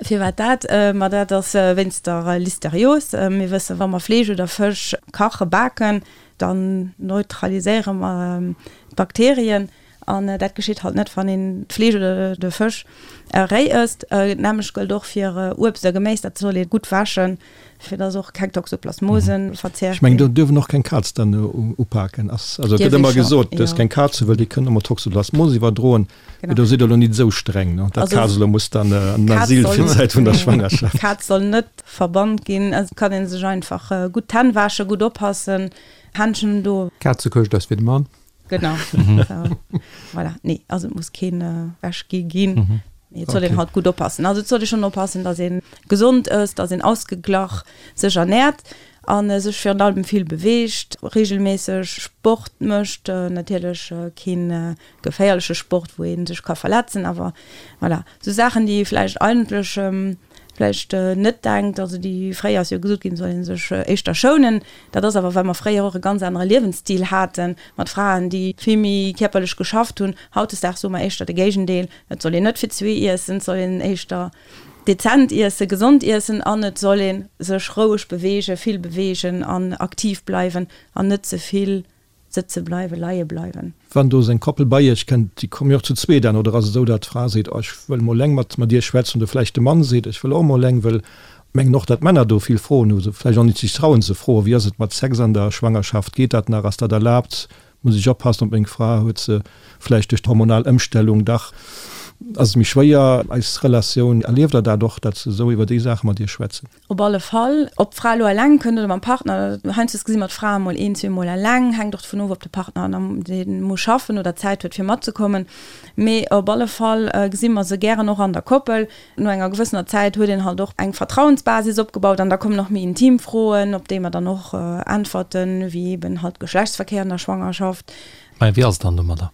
Firwat dat? Ma dat ass wéinst der Listerios. Mir wëssen, wa mer Fleesch oder Fësch kachen, baken, Dann neutraliséiere mer d'Bakterien an dat geschitt halt net, wann een d'Fleesch oder de Fësch réi ësst. D'nämmlecht gëllt och fir Uebst a Geméis, dat soll ee gutt wäschen, fir dass och keng Toxoplasmosen verzehrt Ech mengen, do duerf en och keng Kaz dann upaken. Ass, also et gëtt ëmmer gesot, duerfs keng Kaz hunn, well déi kënnen ëmmer Toxoplasmose iwwerdroen. Mee do sidd Der elo nit esou streng, ne? Dat Kaz elo muss dann an den Asyl fir d'Zäit vun der Schwangerschaft. D'Kaz soll net verbannt ginn. Et kann ee sech einfach gutt d'Hänn wäschen, gutt oppassen, Händschen do. Kazekëscht ass fir de Mann. Genau. Voilà. Nee, also et muss keen ewech gi ginn. Mee et soll een halt gutt oppassen. Also et soll ee schonn oppassen, datt ee gesond ësst, datt een ausgeglach sech ernäert a sech virun allem vill beweegt, reegelméisseg Sport mécht, natierlech keen geféierleche Sport, wou ee sech ka verletzen, awer voilà, esou Saachen, déi ee vläicht eigentlech vläicht net denkt, also déi fréier ass jo gesot ginn, soll ee sech éischter schounen, dat ass awer, well mer fréier och e ganz anere Liewensstil hate mat Fraen, déi vill méi kierperlech geschafft hunn. Hautdesdaags soe mer éischter de Géigendeel, et soll een net fir zwee iessen, et soll een éischter dezent iessen, gesond iessen an et soll ee sech roueg beweegen, vill beweegen an aktiv bleiwen an net ze vill Sëtze bleiwen, leie bleiwen. Wann do seng Koppel bei iech kënnt, déi komme jo och zu zweet an, oder ass et esou, datt d'Fra seet, oh ech wëll mol eleng mat mat dir schwätzen, oder vläicht de Mann seet, ech wëll och mol eleng, wëll mengen och, datt d'Männer do vill Froen hu, se vläicht och nit sech trauen ze froen, wéi ass et mat Sex an der Schwangerschaft, geet dat nach, ass dat erlaabt, muss ech oppassen op meng Fra, huet se vläicht duerch d'hormonal Ëmstellung dach, ass et méi schwéier eis Relatioun, erlieft der dat och, datt se esou iwwer déi Saache mat iech schwätzen? Op alle Fall. Ob d'Fra elo eleng kënnt oder mam Partner, heiansdo gesi mer d'Frae mol een, zweemol eleng, hänkt och dovun of, ob de Partner dee muss schaffen oder Zäit huet fir matzekommen. Mee op alle Fall gesi mer se gären och an der Koppel. No enger gewëssener Zäit huet een halt och eng Vertrauensbasis opgebaut an da kommen och méi intim Froen, op déi mer dann och äntwerten, wéi eben halt Geschlechtsverkéier an der Schwangerschaft. Mä wéi ass et dann domadder?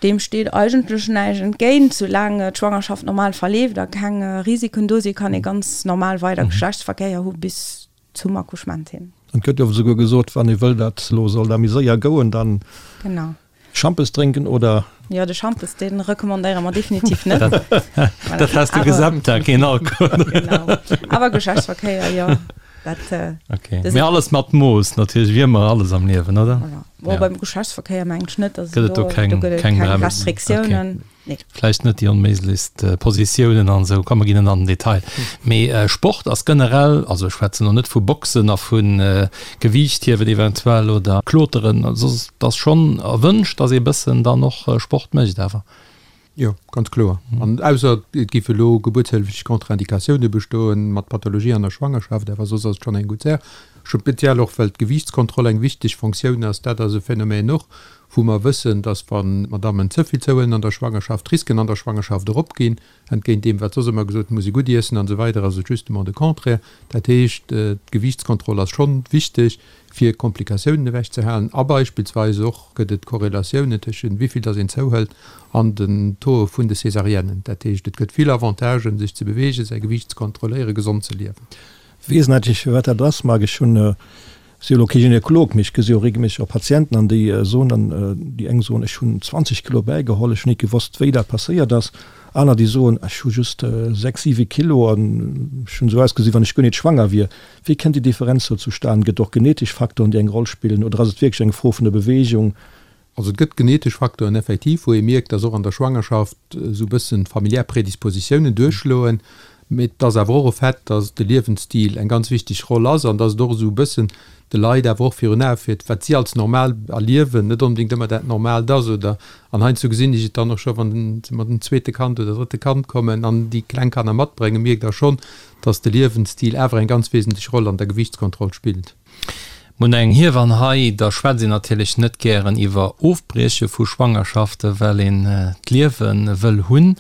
Deem steet eigentlech näischt entgéint. Soulaang d'Schwangerschaft normal verleeft a keng Risiken do sinn, kann ee ganz normal weider Geschlechtsverkéier hu bis zum Accouchement hin. An et gëtt jo esouguer gesot, wann ee wëll, datt elo soll da méi séier gouen, dann Schampes drénken oder? Jo, de Schampes, dee recommandéiere mer definitiv net. Dat has de Gesamttag, keen Alkohol. Genau. Awer Geschlechtsverkéier, jo. Dat, okay. Mee alles mat Mooss natierlech, wéi ëmmer alles am Liewen, oder? Voilà. Bon, ja. beim Geschlechtsverkéier mengen ech net, dass gëtt et do keng, do gëtt et keng, keng Restriktiounen. Okay. Nee. Vläicht net déi onméiglechst äh, Positiounen an esou, komm mer ginn net an den Detail. Mee äh, Sport ass generell, also ech schwätzen lo net vu Boxen a vun äh, Gewiichthiewen eventuell oder Kloteren, also et ass schonn erwënscht, dass ee bëssen dann och äh, Sport mécht awer. Jo, ganz kloer. An ausser et géife elo gebuertshëlleflech Contre-indicatioune bestoen, mat Pathologie an der Schwangerschaft, awer soss ass et schonn eng gutt Saach. Speziell och, well d'Gewiichtskontroll eng wichteg Fonctioun ass. Dat ass e Phänomen och, wou mer wëssen, dass wa Madammen ze vill zouhuelen an der Schwangerschaft, d'Risken an der Schwangerschaft eropginn. Entgéint deem, wat soss ëmmer gesot, muss ee gutt iessen an esou weider, ass et justement de Contraire. Dat heescht, d'Gewiichtskontroll ass schonn wichteg, fir Komplikatiounen ewech ze halen a beispillsweis och gëtt et Korrelatiounen tëschent wéi vill dass een zouhëlt an den Taux vun de Césariennes. Dat heescht, et gëtt vill Avantagen, sech ze beweegen, säi Gewiicht ze kontrolléieren, gesond ze liewen. Weess natierlech firwat dat ass, Marc. Ech hunn, si jo elo kee Gynekolog, mee ech gesi jo regelméisseg och Patienten an déi soen dann, déi eng soen, ech hunn 20 Kilo bäigeholl, ech hunn nit gewosst wéi dat passéiert ass. Aner déi soen, ech hu just 6, 7 Kilo an ech hunn esou ausgesi wann ech guer nit schwanger wier. Wéi kënnt déi Differenz do zustan? Gëtt et och genetesch Faktoren, déi eng Roll spillen, oder ass et wierklech eng Fro vun der Beweegung? Also et gëtt genetesch Faktoren effektiv, wou ee mierkt, dass och an der Schwangerschaft esou e bëssen familiär Predispositiounen duerchschloen. Mee et ass awer och e Fait, dass de Liewensstil eng ganz wichteg Roll ass an dass et och esou e bëssen de Leit awer och virun Ae fiert, wat si als normal erliewen, net onbedéngt ëmmer dat Normaalt ass. Oder, an heiansdo gesinn ech et dann och scho, wann se mat dem zweete Kand oder drëtte Kand kommen an déi kleng Kanner matbréngen, mierkt Der schonn, dass de Liewensstil awer eng ganz wesentlech Roll an der Gewiichtskontroll spillt. Mir hunn eng Hiewann hei, da schwätzt een natierlech net gären iwwer Ofbrieche vu Schwangerschaften, well een d'Liewe wëll hunn.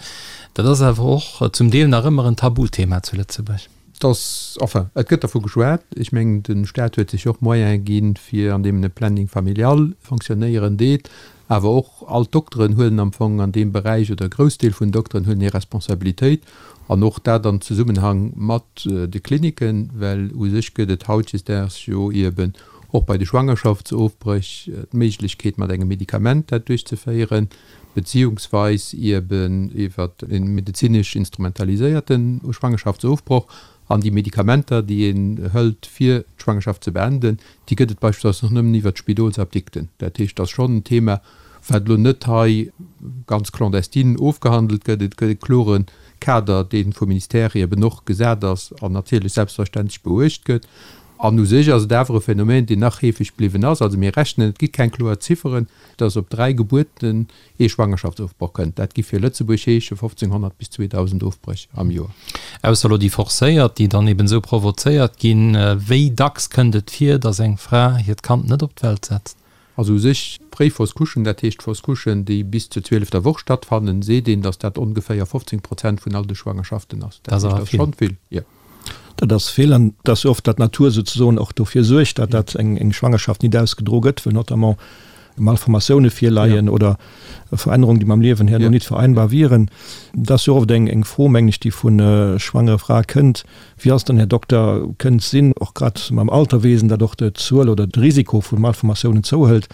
Dat ass awer och zum Deel nach ëmmer en Tabuthema zu Lëtzebuerg. Dass, enfin, et gëtt dervu geschwat. Ech mengen, de Stat huet sech och Moyene ginn, fir an deem en e Planning familial fonctionnéieren deet. Awer och all d'Dokteren huelen am Fong an deem Beräich, oder e Groussdeel vun den Dokteren huelen hir Responsabilitéit, an och dat am Zesummenhang mat de Kliniken, well u sech gëtt et hautdesdaags jo eben och bei de Schwangerschaftsofbréch d'Méiglechkeet mat engem Medikament dat duerchzeféieren, beziehungsweis eben iwwer e medezinesch instrumentaliséierte Schwangerschaftsofbroch. An déi Medikamenter, déi een hëlt, fir d'Schwangerschaft ze beenden, déi gëtt et beispillsweis och nëmmen iwwert d'Spidolsapdikten. Dat heescht, et ass schonn en Thema, wat elo net hei ganz clandestine ofgehandelt gëtt. Et gëtt e klore Kader, dee vum Ministère eben och gesat ass an natierlech selbstverständlech beuecht gëtt. An u sech ass et awer e Phänomen, deen nach heefeg bliwwen ass. Also mir rechnen, et gi keng kloer Zifferen, dass op 3 Gebuerten ee Schwangerschaftsofbroch kënnt. Dat gi fir Lëtzebuerg heesche 1.500 bis 2.000 Ofbréch am Joer. Ausser elo déi forcéiert, déi dann eben esou provozéiert ginn. Wéi dacks kënnt et vir, dass eng Fra hiert Kand net op d'Welt setzt? Also u sech fréi Fausse Couchen, dat heescht Fausse Couchen, déi bis zur zwielefter Woch stattfannen, seet een, datt dat ongeféier 15 Prozent vun all de Schwangerschaften ass. Dat heescht, dat ass schonn vill, jo. Dat ass vill an et ass jo oft, datt d'Natur souzesoen och dofir suergt, datt dat eng Schwangerschaft nit ausgedro gëtt, well notamment Malformatioune virleien oder Verännerungen, déi mam Liewen herno nit vereinbar wieren. Dat ass jo oft eng Fro, mengen ech, déi vu schwangere Frae kënnt, Wéi ass dann, Här Dokter, kënnt sinn, och grad mam Alterwesen, datt och d'Zuel oder de Risiko vu Malformatiounen zouhëlt.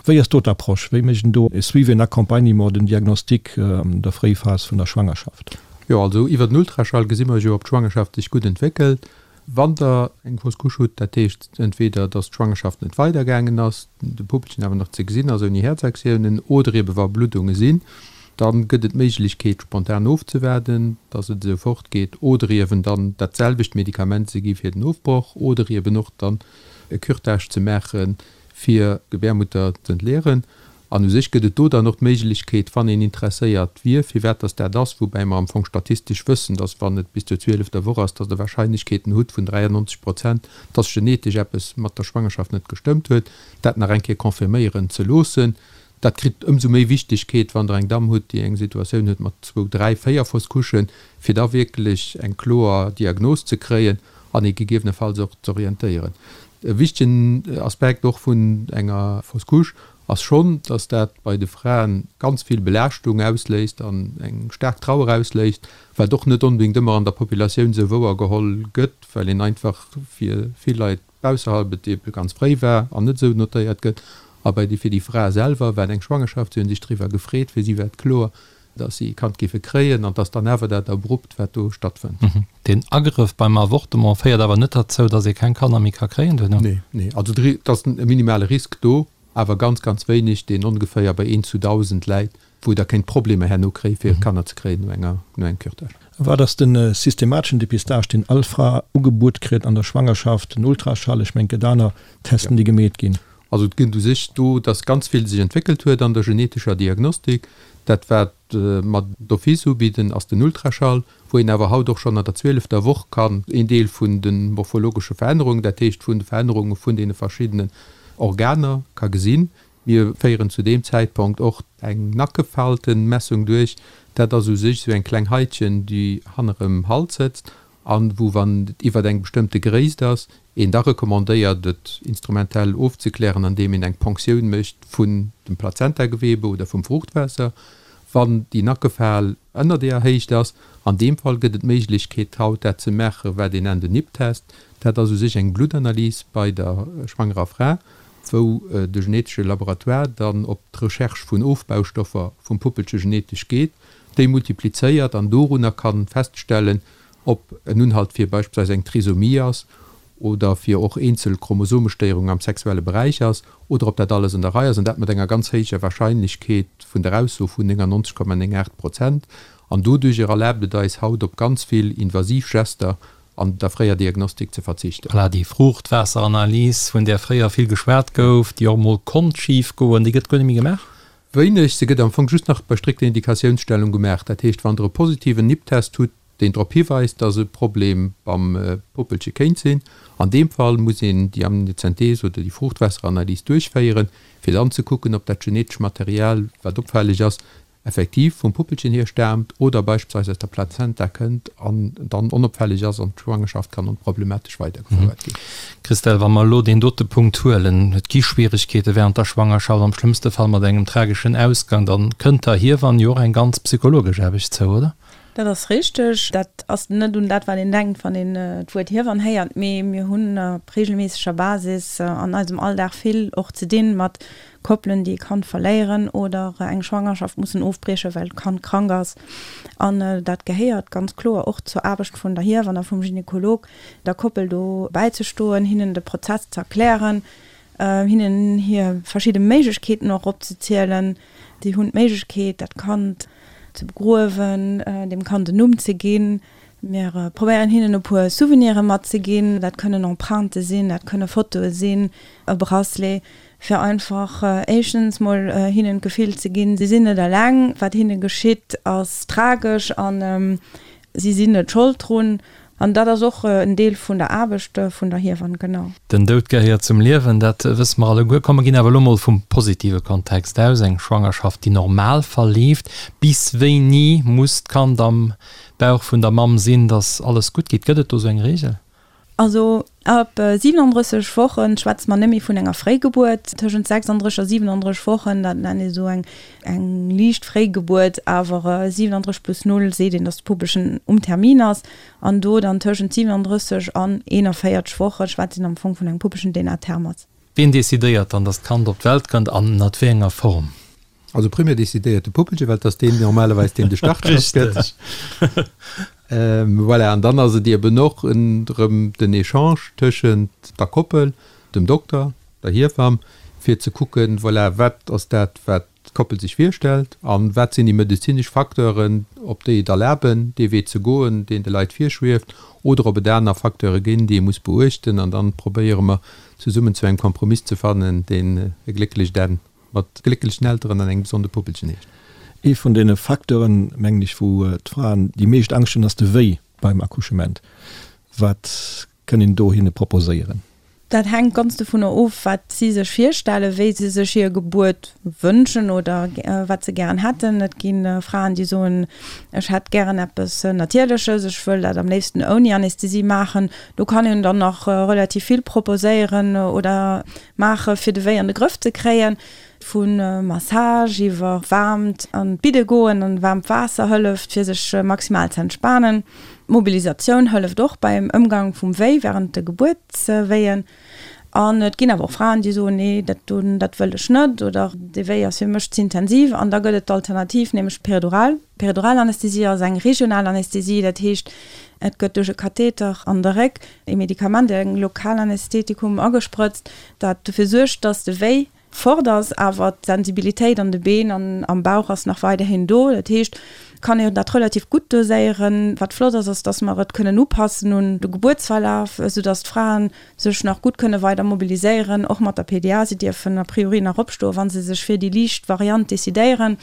Wéi ass do d'Approche? Wéi mécht een do e Suivi, en Accompagnement, den Diagnostic an der Fréiphas vun der Schwangerschaft? Jo, also iwwer den Ultraschall gesi mer jo, ob d'Schwangerschaft sech gutt entwéckelt. Wann Der eng Fausse couche hutt, dat heescht entweder, datt d'Schwangerschaft net weidergaangen ass, de Puppelchen awer nach ze gesinn ass ouni Häerzaktiounen, oder ebe wa Bluddunge sinn, Da gëtt et d'Méiglechkeet, spontan ofzewaarden, dass et esou fortgeet, oder iewen dann dat selwecht Medikament ze gi fir den Ofbroch, oder iewen och dann e Curetage ze maache fir d'Gebärmutter z'entleeren. An u sech gëtt et do dann och d'Méiglechkeet, wann een interesséiert wier, firwat dass dat ass, woubäi mer am Fong statistesch wëssen, dass wann et bis zur zwielefter Woch ass, dass Der Wahrscheinlechkeeten hutt vun 93 Prozent, dass genetesch eppes mat der Schwangerschaft net gestëmmt huet, dat nach eng Kéier confirméieren ze loossen. Dat kritt ëmsou méi Wichtegkeet, wann Der eng Damm hutt, déi eng Situatioun huet mat zwou, dräi, véier Fausse couchen, fir da wierklech eng kloer Diagnos ze kréien an ee gegebenefalls och z'orientéieren. E wichtegen Aspekt och vun enger Fausse couche ass schonn, dass dat bei de Fraen ganz vill Belaaschtung ausléist an eng staark Trauer ausléist, wat och net onbedéngt ëmmer an der Populatioun esou wouergeholl gëtt, well een einfach fir vill Leit Ausserhalb et ebe ganz fréi war an net esou notéiert gëtt. A bei déi fir déi Fra selwer war et eng Schwangerschaft, si hunn sech driwwer gefreet, fir si war et kloer, datt si e Kand géife kréien an 't ass dann awer dat Abrupt, wat do stattfënnt. Deen Agrëff beim Avortement féiert awer net derzou, datt ee keng Kanner méi ka kréien duerno? Nee, nee. Also et ass e minimale Risk do, awer ganz, ganz wéineg, deen ongeféier bei eent zu 1.000 läit. wou der kéint Problemer herno kréie fir Kanner ze kréien no enger no engem Curetage. Wat ass de systemateschen Depistage, deen all Fra ugebuet kritt an der Schwangerschaft, den Ultraschall, ech mengen et gëtt aner Testen, déi gemeet ginn? Also et gëtt u sech do, dass ganz vill sech entwéckelt huet an der genetescher Diagnostik. Dat wat mer d'office ubidden, ass den Ultraschall, wou een awer haut och schonn an der zwielefter Woch kann een Deel vun de morphologesche Verännerungen, dat heescht vun de Verännerunge vun deene verschiddenen Organer ka gesinn. Mir féieren zu deem Zäitponkt och eng Nackefaltenmessung duerch. Dat ass u sech esou eng kleng Haitchen, déi hannerem Hals sëtzt an wou, wann et iwwert eng bestëmmte Gréisst ass, een da recommandéiert, et instrumentell ofzeklären, andeem een eng Ponktioun mécht vun dem Plazentagewebe oder vum Fruuchtwaasser. Wann déi Nackefal ënner deeër Héicht ass, an deem Fall gëtt et d'Méiglechkeet haut dat ze maachen, wat een nennt en NIPT-Test. Dat ass u sech eng Bluttanalys bei der schwangerer Fra, wou de genetesche Laboratoire dann op d'Recherche vun Ofbaustoffer vum Puppelche genetesch geet, déi multiplizéiert an dorunner ka feststellen, ob en Unhalt fir beispillsweis eng Trisomie ass oder fir och eenzel Chromosomestéierungen am sexuelle Beräich ass oder ob dat alles an der Rei ass, an dat mat enger ganz héijer Wahrscheinlechkeet vun der Ausso vun 99,98 Prozent. An doduerjer erlaabt et eis haut op ganz vill invasiv Gester an der fréier Diagnostik ze verzichten. Voilà, déi Fruuchtwaasseranalys, vun där fréier vill geschwat gouf, déi och emol konnt schif goen, déi gëtt guer net méi gemaach? Wéineg. Se gëtt am Fong just nach bei strikter Indikatiounsstellung gemaach. Dat heescht, wann Der e positiven NIPT-Test hutt, deen drop hiweist, dass e Problem beim Puppelche kéint sinn, an deem Fall muss een déi Amniozenthese oder déi Fruuchtwaasseranalys duerchféieren, fir dann ze kucken, ob dat genetesch Material, wat opfälleg ass, effektiv vum Puppelchen hier staamt oder beispillsweis aus der Plazenta kënnt an dann onopfälleg ass an d'Schwangerschaft kann onproblematesch weidergefouert ginn. Christelle, wa mer elo deen dote Punkt huelen, et gi Schwieregkeete während der Schwangerschaft, am schlëmmste Fall mat engem trageschen Ausgang, dann kënnt der Hiewann jo och eng ganz psychologesch Aarbecht zou, oder? Dat ass richteg. Dat ass net un dat, wat een denkt, wann een d'Wuert Hiewann héiert, mee mir hunn op reegelméisseger Basis an eisem Alldag vill och ze dinn mat Koppelen, déi e Kand verléieren oder eng Schwangerschaft mussen ofbriechen, well d'Kand krank ass. An dat gehéiert ganz kloer och zur Aarbecht vun der Hiewann a vum Gynekolog, der Koppel do bäizestoen, hinnen de Prozess ze erklären, hinnen hir verschidde Méiglechkeeten och opzezielen. Si hunn d'Méiglechkeet, dat Kand ze begruewen, dem Kand en Numm ze ginn. Mir probéieren hinnen e puer Souvenire matzeginn. Dat kënnen Emprunte sinn, dat kënne Fotoe sinn, e Bracelet, fir einfach éischtens mol hinnen d'Gefill ze ginn, si sinn net eleng, wat hinne geschitt ass tragesch an si sinn net Schold drun. An dat ass och en Deel vun der Aarbecht vun der Hiewann, genau. Den Doud gehéiert zum Liewen, dat wësse mer alleguer. Komm, mer ginn awer elo mol vum positive Kontext aus, eng Schwangerschaft, déi normal verleeft. Bis wéini muss d'Kand am Bauch vun der Mamm sinn, dass alles gutt geet? Gëtt et do sou eng Reegel? Also ab 37 Wochen schwätze mer net méi vun enger Fréigebuert. Tëschent 36 a 37 Wochen, dat nennt ee sou eng eng liicht Fréigebuert, awer 37 plus 0 seet een, datt de Puppelchen um Termin ass. An do dann tëschent 37 an 41 Woche schwätzt een am Fong vun engem Puppelchen, deen à terme ass. Wien decidéiert dann, datt d'Kand op d'Welt kënnt an ënnert wéi enger Form? Also primär decidéiert de Puppelche, well et ass deen normalerweis, deen de Startschoss gëtt. Voilà, an dann ass et eben och erëm den Echange tëschent der Koppel, dem Dokter, der Hiewamm, fir ze kucken, voilà, wat ass dat, wat d'Koppel sech virstellt a wat sinn déi medezinesch Facteuren, op déi et erlaben, dee Wee ze goen, deen de Leit virschwieft, oder ob et aner Facteure ginn, déi ee muss beuechten. An dann probéiere mer zesummen zu engem Kompromiss ze fannen, deen e glécklecht Enn Mat glécklechen Elteren an engem gesonde Puppelchen heescht. Ee vun deene Facteuren, mengen ech, wou d'Fraen déi meescht Angscht hunn, ass de Wéi beim Accouchement. Wat kënn een do hinne proposéieren? Dat hänkt ganz dovunner of, wat si sech virstellen, wéi se sech hir Gebuert wënschen oder wat se gären hätten. Et gi Fraen, déi soen, ech hätt gären eppes Natierleches, ech wëll dat am léifsten ouni Anästhesie maachen. Do kann een dann nach relativ vill proposéieren oder Maache fir de Wéi an de Grëff ze kréien. Vu Massage iwwer waarmt an d'Bidde goen an waarmt Waasser hëlleft fir sech maximal ze entspanen. D'Mobilisatioun hëlleft och beim Ëmgang vum Wéi wärend de Gebuertswéien. An et ginn awer och Fraen déi soen, nee dat do dat wëll ech net oder dee Wéi ass fir mech ze intensiv. An da gëtt et d'Alternativ, nämlech d'Peridural. D'Periduralanästhesie ass eng regional Anästhesie, dat heescht et gëtt duerch e Katheter an de Réck e Medikament, e Lokalanästhetikum, agesprëtzt, dat dofir suergt, dass de Wéi fort ass, awer d'Sensibilitéit an de Been an am Bauch ass nach weiderhin do. Dat heescht, et kann een dat relativ gutt doséieren. Wat flott ass, ass, dass mer et kënnen upassen un de Gebuertsverlaf, esoudass d'Fraen sech nach gutt kënne weider mobiliséieren, och mat der PDA. Si dierfen a priori nach opstoen, wa se sech fir déi liicht Variant decidéieren.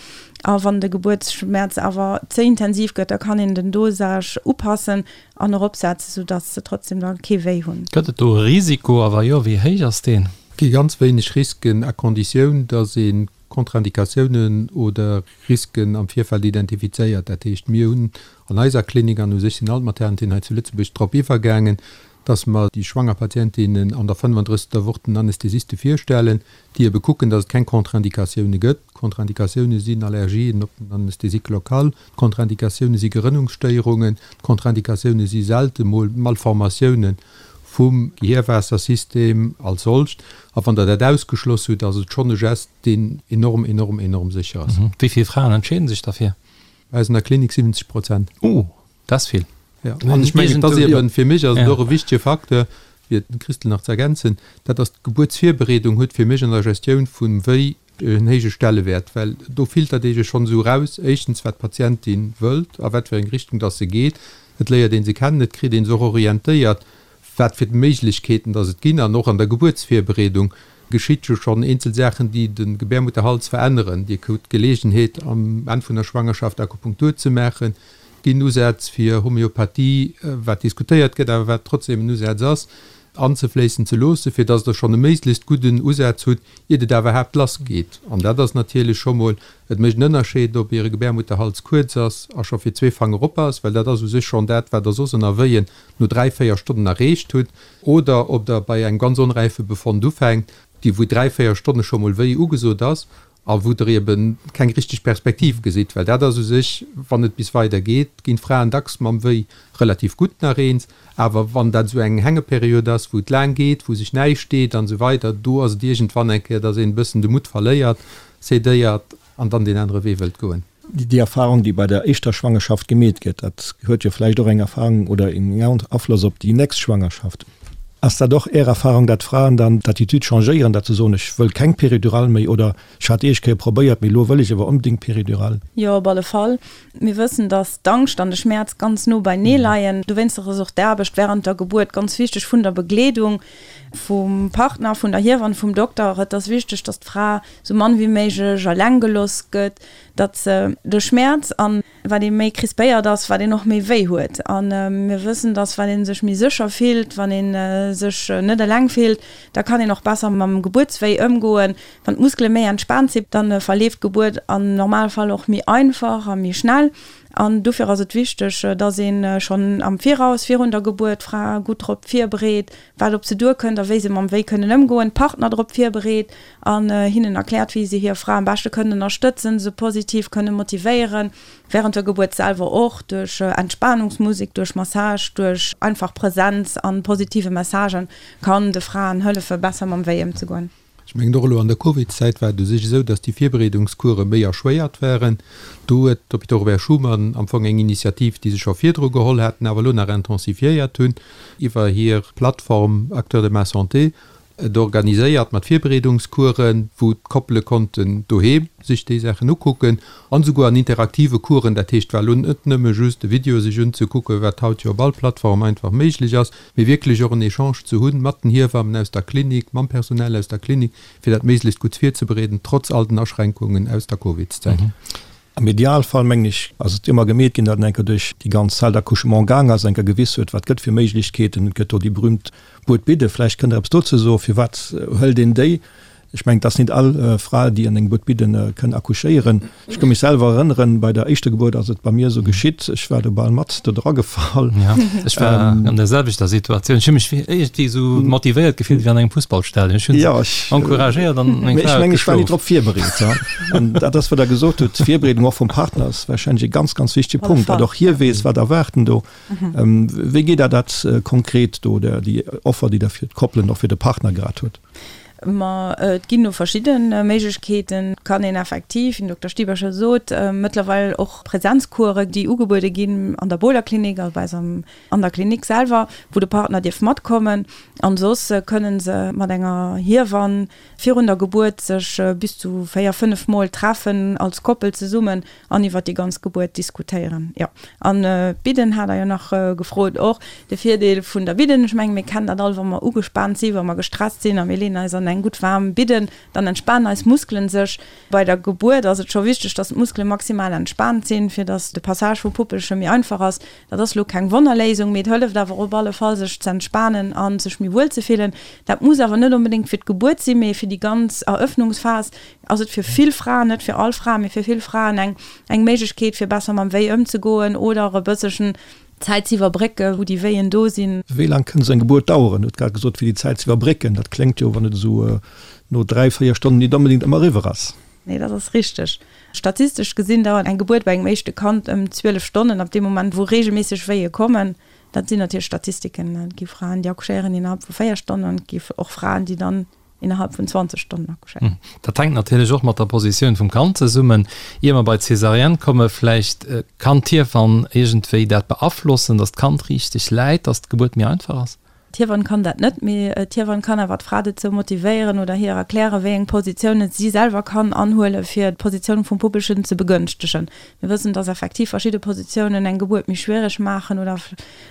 A wann de Gebuertsschmerz awer ze intensiv gëtt, da kann een den Dosage upassen an eropsetzen, soudass se trotzdem da kee Wéi hunn. Gëtt et do e Risiko a wa jo, wéi héich ass deen? Et gi ganz wéineg Risken, à conditioun, dass ee Kontraindikatiounen oder Risken am Virfeld identifizéiert. Dat heescht, mir hunn an eiser Klinik, an u sech sinn all d'Maternitén hei zu Lëtzebuerg drop iwwergaangen, dass mer déi schwanger Patientinnen an der 35. Woch den Anästhesiste virstellen, déi ebe kucken, dass et keng Contre-indicatioune gëtt. D'Contra-indicatioune sinn Allergien op den Anesthésique local, d'Contra-indicatioune si Gerënnungsstéierungen, d'Contra-indicatioune si selte mol Malformatioune vum Gehirwaassersystem als solcht. A wann Der dat ausgeschloss hutt, ass et schonn e Gest, deen enorm, enorm, enorm sécher ass. Wéi vill Fraen entscheede sech derfir? Bei eis an der Klinik 70 Prozent. Oh, dat ass vill. Jo, an ech mengen, et ass eben, fir mech ass et och e wichtege Facteur, fir d'Christl nach ze ergänzen, dat ass d'Gebuertsvirbereedung huet fir mech an der Gestioun vum Wéi en héije Stellewäert, well do filtert ee jo schonn esou eraus, éischtens wat d'Patientin wëllt a wat fir eng Richtung dass se geet. Et léiert ee se kennen, et kritt ee se och orientéiert, wat fir Méiglechkeeten dass et ginn. An och an der Gebuertsvirbereedung geschitt jo schonn eenzel Saachen, déi de Gebärmutterhals veränneren. Dir krut d'Geleegenheet am Enn vun der Schwangerschaft Akupunktur ze maachen. Et ginn Usätz fir Homöopathie, wat diskutéiert gëtt, awer wat trotzdem en Usaz ass, anzefléissen ze loossen, fir dass Der schonn e méiglechst gudden Usaz hutt, iert et awerhaapt lassgeet. An dat ass natierlech scho mol, et mécht en Ënnerscheed, ob Iere Gebärmutterhals kuerz ass a scho fir zwee Fanger op ass, well dat ass u sech schonn dat, wat Der soss ënner Wéien no dräi, véier Stonnen erreecht hutt, oder ob Der bei engem ganz onräife Befond ufänkt, déi wou dräi, véier Stonne scho mol wéi ugesot ass. A wou Der eben keng richteg Perspektiv gesitt, well dat ass u sech, wann et bis weider geet, ginn d'Fraen dacks mam Wéi relativ gutt nach eens, awer wann dat esou eng Hängeperiod ass, wou et laang geet, wou sech näischt deet an esou weider, do ass et iergendwann eng Kéier, dass een e bëssen de Mutt verléiert, cédéiert an dann deen anere Wee wëllt goen. Déi Erfahrung, déi bei der éischter Schwangerschaft gemeet gëtt, dat huet jo vläicht och eng Erfahrung oder en Afloss op déi nächst Schwangerschaft. Ass dat och Är Erfahrung, dat d'Fraen dann d'Attitude changéieren, dat se soen, ech wëll keng Péridurale méi oder ech hat éischt Kéier probéiert, mee elo wëll ech awer onbedéngt Péridurale? Jo, op alle Fall. Mir wëssen, dass d'Angscht an de Schmäerz ganz no beinee leien. Dowéinster ass och d'Aarbecht während der Gebuert ganz wichteg vun der Begleedung vum Partner, vun der Hiewann, vum Dokter. Et ass wichteg, dass d'Fra sou mann wéi méiglech eleng gelooss gëtt, datt se de Schmäerz an wat ee méi crispéiert ass, wat een och méi wéi huet. A mir wëssen, datt wat ee sech méi sécher fillt, wann ee sech net eleng fillt, da kann een och besser mam Gebuertswéi ëmgoen. Wann d'Muskele méi entspaant sinn, da verleeft d'Gebuert am Normalfall och méi einfach a méi schnell. An dofir ass et wichteg, datt ee schonn am Viraus, virun der Gebuert, d'Fra gutt drop virbereet, wat op se duerkënnt a wéi se mam Wéi kënnen ëmgoen, d'Partner drop virbereet an hinnen erkläert, wéi se hir Fra am beschte kënnen ënnerstëtzen, se positiv kënne motivéieren, während der Gebuert selwer och, duerch Entspanungsmusek, duerch Massage, duerch einfach Präsenz an positive Messagen kann de Fraen hëllefe besser mam Wéi ëmzegoen. Ech mengen och elo an der Covidzäit war et u sech esou, datt déi Virbereedungscourse méi erschwéiert waren. Do huet d'Hôpital Robert Schuman am Fong eng Initiativ, déi se scho virdru geholl haten, awer elo nach intensifiéiert hunn iwwer hir Plattform Acteurs de ma santé, et organiséiert mat Virbereedungscoursen, wou d'Koppele konnten doheem sech déi Saachen ukucken an esouguer an interaktive Coursen. Dat heescht, et war elo net nëmme just e Video sech unzekucken, wat haut jo op all Plattform einfach méiglech ass, mee wierklech och en Echange ze hunn mat den Hiewammen aus der Klinik, mam Personal aus der Klinik, fir dat méiglechst gutt virzebereeden, trotz all den Aschränkungen aus der Covidszäit. Am Idealfall, mengen ech, ass et ëmmer gemeet ginn, datt een eng Kéier duerch déi ganz Salle d'accouchement gaang ass, eng Kéier gewiss huet, wat gëtt fir Méiglechkeeten. Et gëtt do déi berühmt Buedbidde. Vläicht kënnt Der eppes dozou soen. Firwat hëlt een déi? Ech mengen, et ass nit all Fra, déi an engem Buedbidde kënn accouchéieren. Ech ka mech selwer erënneren, bei der éischter Gebuert ass et bei mir esou geschitt, ech war do bal mat do dra gefall. Ja, ech war an der selwechter Situatioun. Ech hu mech iergendwéi esou motivéiert gefillt wéi an engem Fussballstadion. Ech hunn se encouragéiert an meng Fra huet geschlof. Ech war nit drop virbereet. An dat ass, wat Der gesot hutt, d'Virbereedung och vum Partner ass warscheinlech e ganz, ganz wichtege Punkt, datt och hie weess, wat erwaart en do. Wéi geet Der dat konkret do, déi Offer, déi Der fir d'Koppelen, och fir de Partner grad hutt? Ma et ginn do verschidde Méiglechkeeten. Et kann een effektiv, wéi den Dokter Stieber scho sot, mëttlerweil och Präsenzcoursen, déi ugebuede ginn an der Bohler Klinik, also bei eis an der Klinik selwer, wou de Partner dierf matkommen. An soss kënne se mat enger Hiewann virun der Gebuert sech bis zu 4, 5 Mol treffen als Koppel zesummen an iwwert déi ganz Gebuert diskutéieren. Jo, an d'Bidden hat Der jo nach gefrot och. De Virdeel vun der Bidden, ech mengen, mir kennen dat all, wa mer ugespaant sinn, wa mer gestresst sinn a mir leeën eis an eng gutt waarm Bidden, dann entspanen eis Muskelen sech. Bei der Gebuert ass et scho wichteg, dass d'Muskele maximal entspaant sinn, fir dass de Passage vum Puppelche méi einfach ass. Dat ass elo keng Wonnerléisung, mee et hëlleft awer op alle Fall, sech ze entspanen a sech méi wuel ze fillen. Dat muss awer net onbedéngt fir d'Gebuert sinn, mee fir déi ganz Erëffnungsphas ass et fir vill Fraen, net fir all Fra, mee fir vill Fraen eng eng Méiglechkeet, fir besser mam Wéi ëmzegoen oder e bësselchen Zäit ze iwwerbrécken, wou déi Wéien do sinn. Wéi laang kënnt esou eng Gebuert daueren? Hutt grad gesot, fir déi Zäit ze iwwerbrécken. Dat kléngt jo, wann et esou no 3, 4 Stonnen nit onbedéngt ëmmer eriwwer ass. Nee, dat ass richteg. Statistesch gesinn dauert eng Gebuert bei engem éischte Kand ëm 12 Stonnen, ab deem Moment, wou reegelméisseg Wéie kommen. Dat sinn natierlech Statistiken. Et gi Fraen, déi accouchéieren innerhalb vu 4 Stonnen an et gi och Fraen, déi dann innerhalb vun 20 Stonnen accouchéieren. Dat hänkt natierlech och mat der Positioun vum Kand zesummen. Ier mer bei d'Césarienne komme vläicht, Kann d'Hiewann iergendwéi dat beaflossen, datt d'Kand richteg läit, datt d'Gebuert méi einfach ass? D'Hiewann kann dat net, mee d'Hiewann kann awer d'Fra dozou motivéieren oder hir erklären, wéi eng Positiounen si selwer kann anhuelen, fir d'Positioun vum Puppelchen ze begënschtegen. Mir wëssen, dass effektiv verschidde Positiounen eng Gebuert méi schwiereg maachen oder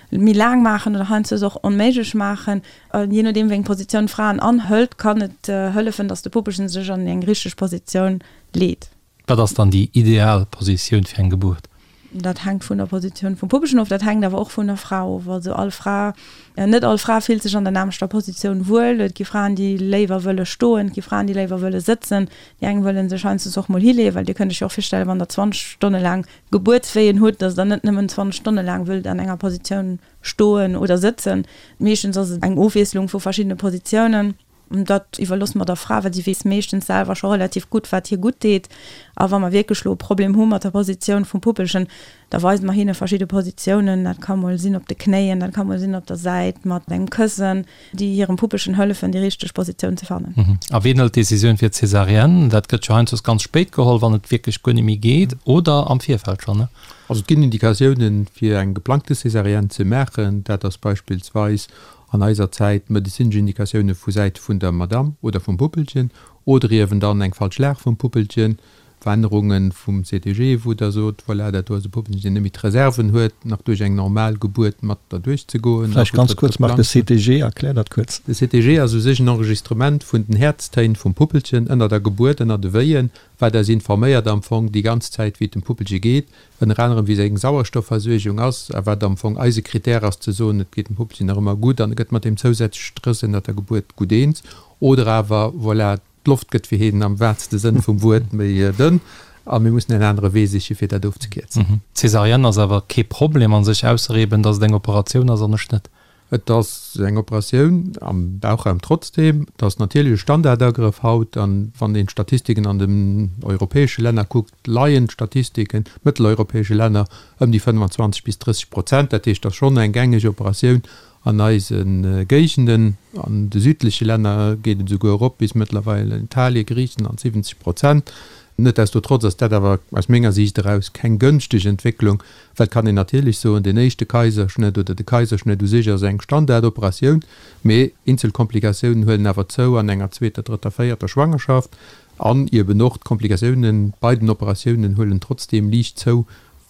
méi laang maachen oder heiansdo och onméiglech maachen. Jee nodeem, wéi eng Positioun d'Fraen anhëlt, kann et hëllefen, dass de Puppelchen sech an eng richteg Positioun leet. Wat ass dann déi ideal Positioun fir eng Gebuert? Dat hänkt vun der Positioun vum Puppelchen of, dat hänkt awer och vun der Fra of. Also all Fra, net all Fra fillt sech an der nämmlechter Positioun wuel. Et gi Fraen, déi léiwer wëlle stoen, et gi Fraen, déi léiwer wëlle sëtzen. Déi eng wëlle sech heiansdo och mol hileeën, well Dir kënnt Iech jo och virstellen, wann Der 20 Stonne laang Gebuertswéien hutt, dass Der net nëmmen 20 Stonne laang wëllt an enger Positioun stoen oder sëtzen. Meeschtens ass et eng Ofwiesslung vu verschiddene Positiounen. Dat iwwerloosse mer der Fra, well si weess meeschtens selwer scho relativ gutt, wat hir gutt deet. A wa mer wierklech elo e Problem hu mat der Positioun vum Puppelchen, da weise mer hinne verschidde Positiounen. Dat ka mol sinn op de Knéien, dat ka mol sinn op der Säit mat engem Këssen, déi hirem Puppelchen hëllefen, déi richteg Positioun ze fannen. A wien hëlt d'Decisioun fir d'Césarienne? Dat gëtt jo heiansdo ganz spéit geholl, wann et wierklech guer net méi geet, oder am Virfeld schonn, ne? Also et ginn Indikatiounen, fir eng geplangte Césarienne ze maachen. Dat ass beispillsweis an eiser Zäit medezinesch Indikatioune vu Säit vun der Madamm oder vum Puppelchen oder iewen dann eng falsch Lag vum Puppelchen, Verännerunge vum CTG, wou Der sot, voilà, dat do ass e Puppelchen, deen net méi d'Reserven huet, nach duerch eng normal Gebuert mat derduerch ze goen. Vläicht ganz kuerz, Marc, de CTG, erklär dat kuerz. De CTG ass u sech en Enregistrement vun den Häerztéin vum Puppelchen ënner der Gebuert, ënner de Wéien, wat eis informéiert am Fong déi ganz Zäit, wéi et dem Puppelche geet. ënner anerem wéi seng Sauerstoffversuergung ass a wat am Fong eise Critère ass ze soen, et geet dem Puppelchen nach ëmmer gutt an e gëtt mat deem zousätzleche Stress ënnert der Gebuert gutt eens oder awer, voilà, d'Loft gëtt fir hien am wahrste Sënn vum Wuert méi dënn a mir mussen en anere Wee siche fir dat ofzekierzen. D'Césarienne ass awer kee Problem a sech, ausser eben, datt et eng Operatioun ass an e Schnëtt. Et ass eng Operatioun am Bauchraum trotzdeem. Et ass natierlech e Standardagrëff haut. An wann een d'Statistiken an den europäesche Länner kuckt, leien d'Statistiken, mëtteleuropäesche Länner, ëm déi 25 bis 30 Prozent. Dat heescht, et ass schonn eng gängeg Operatioun an eise Géigenden. An de südleche Länner geet et esouguer erop bis mëttlerweil Italien, Griichenland, 70 Prozent. Netdestotrotz ass dat awer aus menger Siicht eraus keng gënschteg Entwécklung, Well et kann een natierlech soen, deen éischte Kaiserschnëtt oder de Kaiserschnëtt u sech ass eng Standardoperatioun, mee eenzel Komplikatiounen huelen awer zou an enger zweeter, drëtter, véierter Schwangerschaft an eben och d'Komplikatiounen bei den Operatiounen huelen trotzdeem liicht zou,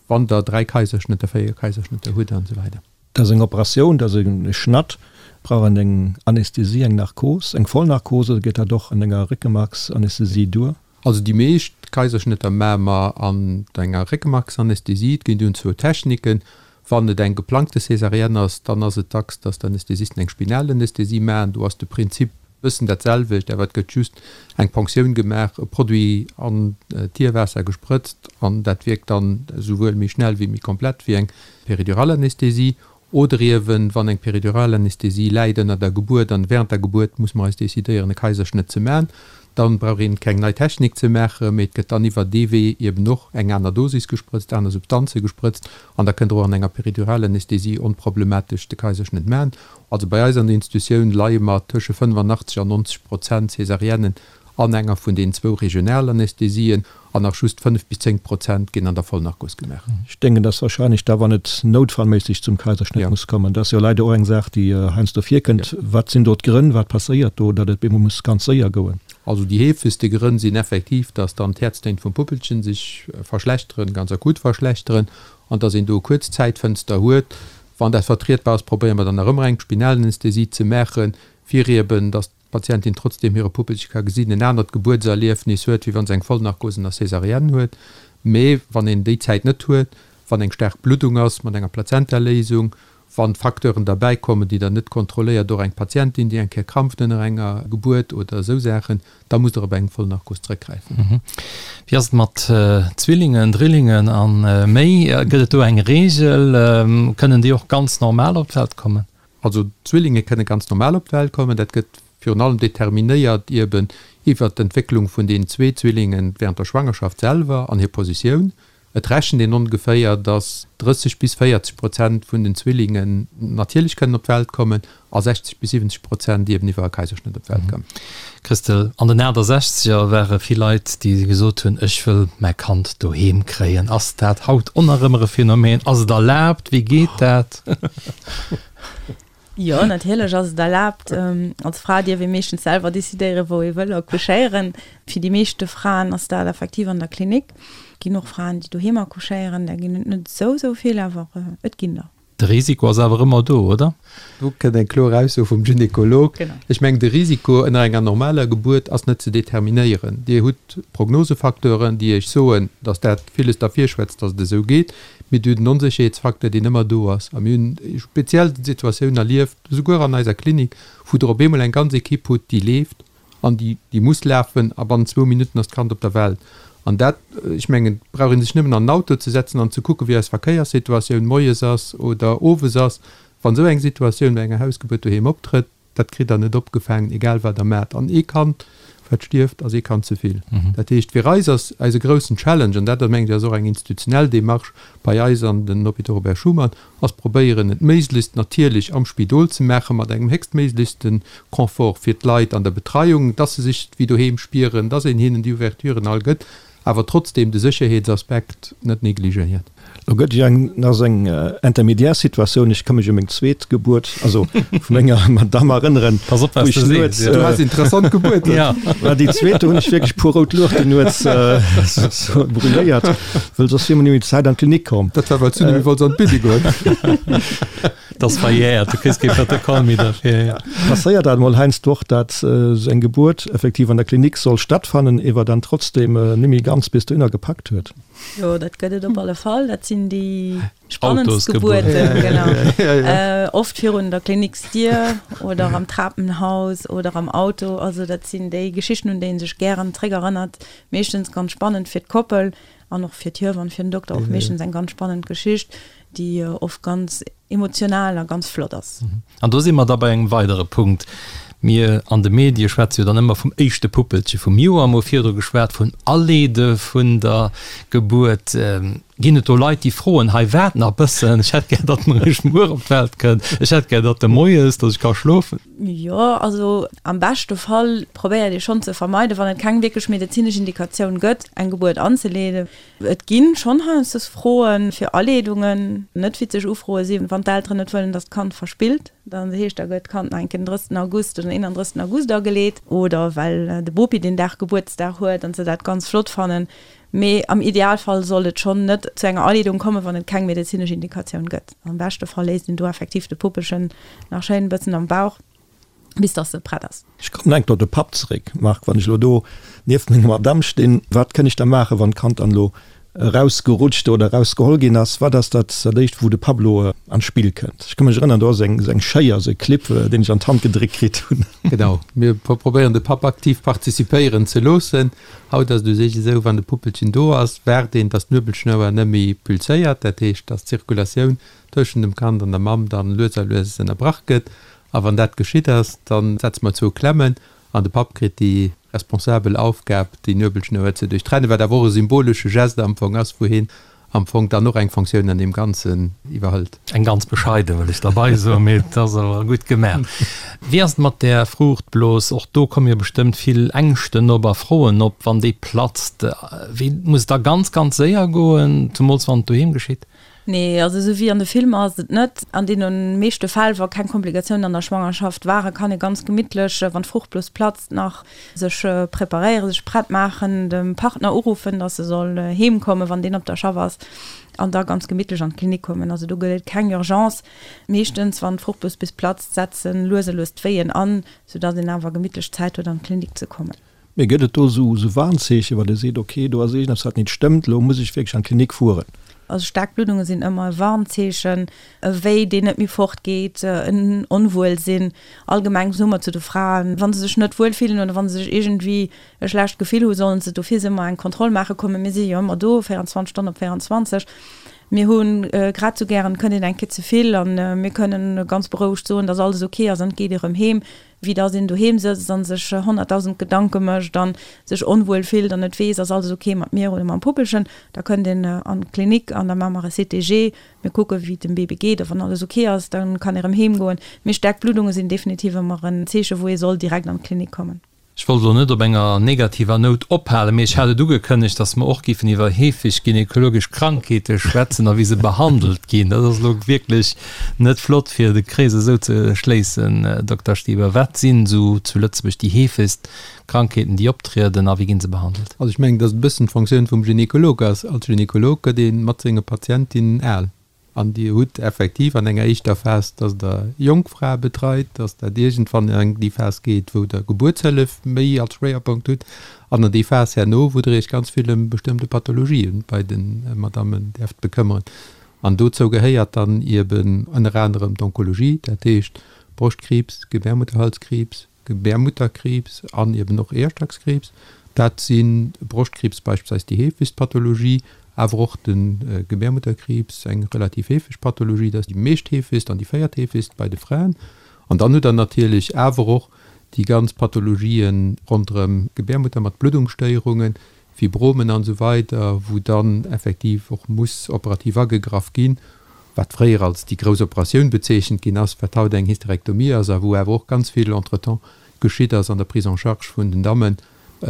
wann Der dräi Kaiserschnëtter, véier Kaiserschnëtter hutt an esou weider. Dat ass eng Operatioun, dat ass e Schnatt. Brauch een eng Anästhesie, eng Narkos, eng Vollnarkos oder geet dat och an enger Réckemarksanästhesie duer? Also déi meescht Kaiserschnëtter maache mer an enger Réckemarksanästhesie. Et ginn dunn zwou Techniken. Wann et eng geplangte Césarienne ass, dann ass et dacks, dass d'Anästhesisten eng Spinalanästhesie maachen. Do ass de Prinzip e bëssen dat selwecht, awer et gëtt just eng Ponktioun gemaach, e Produit an d'Hierwaasser gesprëtzt an dat wierkt dann esouwuel méi schnell wéi méi komplett wéi eng Periduralanästhesie. Oder iewen, wann eng Periduralanästhesie läit ënner der Gebuert an während der Gebuert muss mer eis decidéieren e Kaiserschnëtt ze man, dann brauch een keng nei Technik ze maachen, mee et gëtt dann iwwer dee Wee iewen och eng aner Dosis gesprëtzt, aner Substanze gesprëtzt an da kënnt Der och an enger Periduralanästhesie onproblematesch de Kaiserschnëtt man. Also bei eis an der Institutioun leie mer tësche 85 an 90 Prozent Césariennen an enger vun den zwou Regionalanästhesien an nach just 5 bis 10 Prozent ginn an der Vollnarkos gemaach. Ech denken, dass wahrscheinlech da, wann et noutfallméisseg zum Kaiserschnëtt muss kommen, dat ass jo leider och eng Saach, déi heiansdo virkënnt. Wat sinn do d'Grënn? Wat passéiert do, datt et bemol muss ganz séier goen? Also déi heefegste Grënn sinn effektiv, dass dann d'Häerztéin vum Puppelchen sech verschlechteren, ganz akut verschlechteren, an dass een do e kuerz Zäitfënster huet. Wann dat vertrietbar ass, probéiere mer dann nach ëmmer eng Spinalanästhesie ze maachen, fir eben, dass d'Patientin trotzdeem hire Puppelche ka gesinn, en anert Gebuertserliefnis huet, wéi wa se eng Vollnarkos ënner Césarienne huet. Mee wann een déi Zäit net huet, wann eng staark Bluddung ass mat enger Plazentaléisung, wann Facteuren derbäi kommen, déi Der net kontrolléiert, och eng Patientin, déi eng Kéier krampft ënner enger Gebuert oder esou Saachen, da musst Der op eng Vollnarkos zrëckgräifen. Wéi ass et mat Zwillingen, Drillingen a méi? Gëtt et do eng Reegel? Kënnen déi och ganz normal op d'Welt kommen? Also d'Zwillinge kënne ganz normal op d'Welt kommen. Dat gëtt virun allem determinéiert ieben iwwert d'Entwécklung vun den zwee Zwillinge während der Schwangerschaft selwer an hir Positioun. Et rechent een ongeféier, datt 30 bis 40 Prozent vun den Zwillingen natierlech kënnen op d'Welt kommen a 60 bis 70 Prozent ieben iwwer e Kaiserschnëtt op d'Welt kommen. Christel, an den 68er ware vill Leit, déi gesot hunn, ech wëll mäi Kand doheem kréien. Ass dat haut och nach ëmmer e Phänomen? Ass et erlaabt? Wéi geet dat? Jo, natierlech ass et erlaabt. Als Fra dierf ee meeschtens selwer decidéieren, wou ee wëll accouchéieren. Fir déi meeschte Fraen ass dat effektiv an der Klinik. Et ginn och Fraen, déi doheem accouchéieren. Där ginn et net esou, esou vill, awer et ginn der. De Risiko ass awer ëmmer do, oder? Do kënnt eng kloer Ausso vum Gynekolog. Ech mengen, de Risiko ënner enger normaler Gebuert ass net ze determinéieren. Dir hutt Prognosefacteuren, déi Iech soen, datt dat villes derfir schwätzt, datt et esou geet. Mee Dir hutt en Onsécherheetsfacteur, deen ëmmer do ass. A mir hunn speziell Situatioun erlieft, esouguer an eiser Klinik, wou Der op eemol eng ganz Ekipp hutt, déi leeft, An déi, déi muss lafen a bannent zwou Minutten ass d'Kand op der Welt. An dat, ech mengen, et brauch ee sech nëmmen an en Auto ze setzen an ze kucken, wéi eis Verkéierssituatioun moies ass oder owes ass. Wann esou eng Situatioun bei enger Hausgebuert doheem optrëtt, Dat kritt Der net opgefaangen, egal wat Der maacht. An ee Kand, wat stierft, ass ee Kand ze vill. Dat heescht, fir eis ass eise groussen Challenge, an dat, mengen ech, ass och eng institutionell Démarche bei eis an den Hôpitaux Robert Schuman, ass probéieren, et méiglechst natierlech am Spidol ze maachen, mat engem héchstméiglechste Confort fir d'Leit an der Betreiung, dass se sech wéi doheem spieren, dass een hinnen déi Ouverturen all gëtt, awer trotzdem de Sécherheetsaspekt net negligéiert. Lo gëtt jo eng nach esou eng intermédiaire Situatioun. Ech ka mech u meng zweet Gebuert, also vu menger Madamm erënneren, Pass op, wou wat s ech de nuets, sees, jo. Du has interessant Gebuerten. Ja. Mä déi zweet, do hunn ech wierklech puer rout Luuchten nuets sou brûléiert, wëll soss wier mer net méi Zäit an d'Klinik komm. Dat war, well s du net méi wollts an d'Bidde goen. Dat ass verjährt, du kriss kee Protokoll méi derfir. Ja. Passéiert dat emol heiansdo och, dat esou eng Gebuert effektiv an der Klinik soll stattfannen, ewer dann trotzdem net méi ganz bis dohinner gepackt huet? Jo, dat gëtt et op alle Fall. Dat sinn déi spannendst Gebuerten, genau. Oft virun der Kliniksdier oder am Trapenhaus oder am Auto. Also dat sinn déi Geschichten, un déi ee sech gären zréckerënnert. Meeschtens ganz spannend fir d'Koppel an och fir d'Hiewann, fir den Dokter och meeschtens eng ganz spannend Geschicht, déi oft ganz emotional a ganz flott ass. An do si mer da bei engem weidere Punkt. Mir an de Medie schwätze jo dann ëmmer vum éischte Puppelche vum Joer, mer hu virdru geschwat vun Aleede vun der Gebuert. Ginn et do Leit, déi froen, hei waart nach bëssen, ech hätt gär, datt en eréischt muer op d'Welt kënnt, ech hätt gär, datt e moies, datt ech ka schlofen? Jo, also am beschte Fall probéiert ee schonn ze vermeiden, wann et keng wierklech medezinesch Indikatioun gëtt, eng Gebuert anzeleeden. Et gi schonn heiansdo Froe fir Aleedungen, net witzeg Ufroe sinn, wann d'Elteren net wëllen, datt d'Kand verspillt, dann heescht, da gëtt d'Kand nach eng Kéier den 30. August oder den 31. August ageleet oder well de Bopi deen Dag Gebuertsdag huet an se dat ganz flott fannen. Mee am Idealfall sollt et schonn net zu enger Aleedung kommen, wann et keng medezinesch Indikatioun gëtt. Am beschte Fall léisst een do effektiv de Puppelchen nach schéin e bëssen am Bauch, bis dass se prett ass. Ech kommen enk op de Papp zeréck, Marc. Wann ech elo do nieft menger Madamm stinn, wat kënn ech da maachen, wann d'Kand dann elo erausgerutscht oder erausgeholl ginn ass? Wat ass dat dat éischt, wou de Papp elo an d'Spill kënnt? Ech ka mech erënnern, do ass eng esou eng Schéier, esou e Clip, deen ech an d'Hand gedréckt kritt hunn. Genau, mir probéieren de Papp aktiv participéieren ze loossen. Haut ass et u sech esou, wann de Puppelchen do ass, waart een, dass d'Nuebelschnouer net méi pulséiert, dat heescht, dass d'Zirkulatioun tëschent dem Kand an der Mamm dann lues a lues ënnerbrach gëtt. A wann dat geschitt ass, da setze mer zwou Klemmen an de Papp kritt déi responsabel Aufgab, déi Nuebelschnouer ze duerchtrennen, wat awer och e symbolesche Geste am Fong ass, wou hien am Fong dann och eng Fonctioun an deem Ganzen iwwerhëlt. Eng ganz bescheiden, wëll ech derbei soen, mee et ass awer gutt gemaach. Wéi ass et mat där Fruuchtblos? Och do komme jo bestëmmt vill Ängschten op a Froen op, wann déi platzt. Wéi muss et da ganz, ganz séier goen, zemools wann et doheem geschitt? Nee, also esou wéi an de Filmer ass et net. An deene meeschte Fäll, wa keng Komplikatiounen an der Schwangerschaft waren, kann ee ganz gemittlech, wann d'Fruchtblos platzt, nach sech preparéieren, sech prett maachen, dem Partner uruffen, dass e soll heem kommen, wann deen op der Schaff ass, an da ganz gemittlech an d'Klinik kommen. Also do gëtt et keng Urgence. Meeschtens, wann d'Fruchtblos bis platzt, setzen lues a lues d'Wéien an, soudass een awer gemittlech Zäit huet, an d'Klinik ze kommen. Mee gëtt et do esou Warnzeechen, wann ee seet, ok, do ass iergendeppes wat nit stëmmt, elo muss ech wierklech an d'Klinik fueren? Also staark Bluddunge sinn ëmmer e Warnzeechen, e Wéi deen net méi fort geet, en Onwuelsinn. Allgemeng soe mer zu de Fraen, wa se sech net wuel fillen oder wa se sech iergendwéi e schlecht Gefill hu, sollen se d'office ëmmer eng Kontroll maache kommen. Mir si jo ëmmer do, 24 Stonnen op 24. Mir hu grad esou gären, et kënnt een eng Kéier ze vill a mir kënnen ganz berouegt soen, dass alles ok ass an et geet erëm heem. wéi dass een doheem sëtzt an sech 100.000 Gedanke mécht an sech onwuel fillt an net weess, ass alles ok mat mir oder mam Puppelchen, da kënnt een an d'Klinik an da maache mer e CTG, mir kucke wéi et dem Baby geet a wann alles ok ass, da kann ee rëm heem goen. Mee staark Bluddunge sinn definitiv ëmmer en Zeeche wou ee soll direkt an d'Klinik kommen. Ech wollt elo net op enger negativer Nout ophalen, mee ech hat et ugekënnegt, dass mer och géifen iwwer heefeg gynekologesch Krankheete schwätzen a wéi se behandelt ginn. Dat ass elo wierklech net flott, fir de Krees esou ze schléissen. Dokter Stieber, wat sinn esou zu Lëtzebuerg déi heefegst Krankheeten, déi optrieden a wéi gi se behandelt? Also ech mengen, dass et e bëssen d'Fonctioun vum Gynekolog ass. Als Gynekolog gëtt ee mat senge Patientinnen al. An Dir hutt effektiv an enger éischter Phas, dass Der jonk Frae betreit, dass dat iergendwann an déi Phas geet, wou Der Gebuertshëllef méi als Schwéierpunkt hutt, an an déi Phas herno, wou Der Iech ganz vill ëm bestëmmte Pathologien bei de Madammen däerft bekëmmeren. An dozou gehéiert dann ieben ënner anerem d'Onkologie, dat heescht Broschtkriibs, Gebärmutterhalskriibs, Gebärmutterkriibs an eben och Eeërstackskriibs. Dat si Broschtkriibs beispillsweis déi heefegst Pathologie, awer och de Gebärmutterkriibs, eng relativ heefeg Pathologie, dat ass déi meescht heefegst an déi véiertheefegst bei de Fraen. An dann hutt Der natierlech awer och déi ganz Pathologien ronderëm d'Gebärmutter mat Bluddungsstéierungen, Fibromen an esou weider, wou dann effektiv och muss operativ agegraff ginn, wat fréier als déi grouss Operatioun bezeechent ginn ass, wat haut eng Hysterektomie ass a wou awer och ganz vill entretemps geschitt ass an der Prise en charge vun den Dammen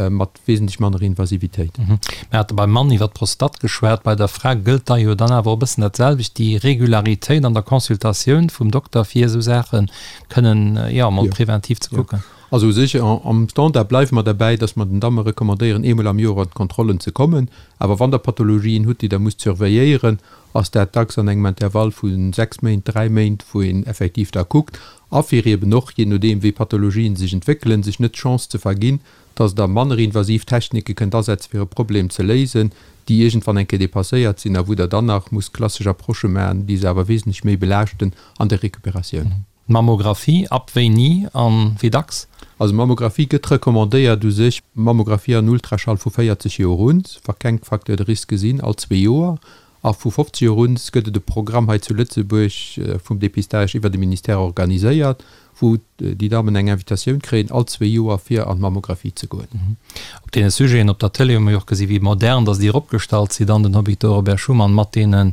mat wesentlech manner Invasivitéit. Mir hate beim Mann iwwer d'Prostate geschwat, bei der Fra gëllt da jo dann awer och e bëssen dat selwecht, déi Regularitéit an der Consultatioun vum Dokter fir esou Saache kënnen, jo, emol preventiv ze kucken. Also u sech am Standard bleiwe mer derbäi, dass mer den Damme recommandéieren, eemol am Joer an d'Kontrollen ze kommen. Awer wann Der Pathologien hutt, déi Der musst surveilléieren, ass dat dacks an engem Intervall vu 6 Méint, 3 Méint, wou een effektiv da kuckt. A fir eeben och, jee nodeem wéi Pathologien sech entwéckelen, sech net d'Chance ze verginn, dass Der manner invasiv Technike kënnt asetzen, fir e Problem ze léisen, déi iergendwann eng Kéier dépasséiert sinn a wou Der dann nach musst klassesch Approchë maachen, déi se awer wesentlech méi belaaschten an der Recuperatioun. Mammographie, ab wéini an wéi dacks? Also Mammographie gëtt recommandéiert u sech, Mammographie an Ultraschall vu 40 Joer un, wa keng Facteurs de risque sinn, all zwee Joer. A vu 50 Joer un gëtt et e Programm hei zu Lëtzebuerg vum Dépistage iwwer de Ministère organiséiert, wou déi Dammen eng Invitatioun kréien, all zwee Joer fir an d'Mammographie ze goen. Op deene Sujeten op der Tëlee hu mer jo och gesi wéi modern datt Dir opgestallt sidd an den Hôpitaux Robert Schuman mat deene,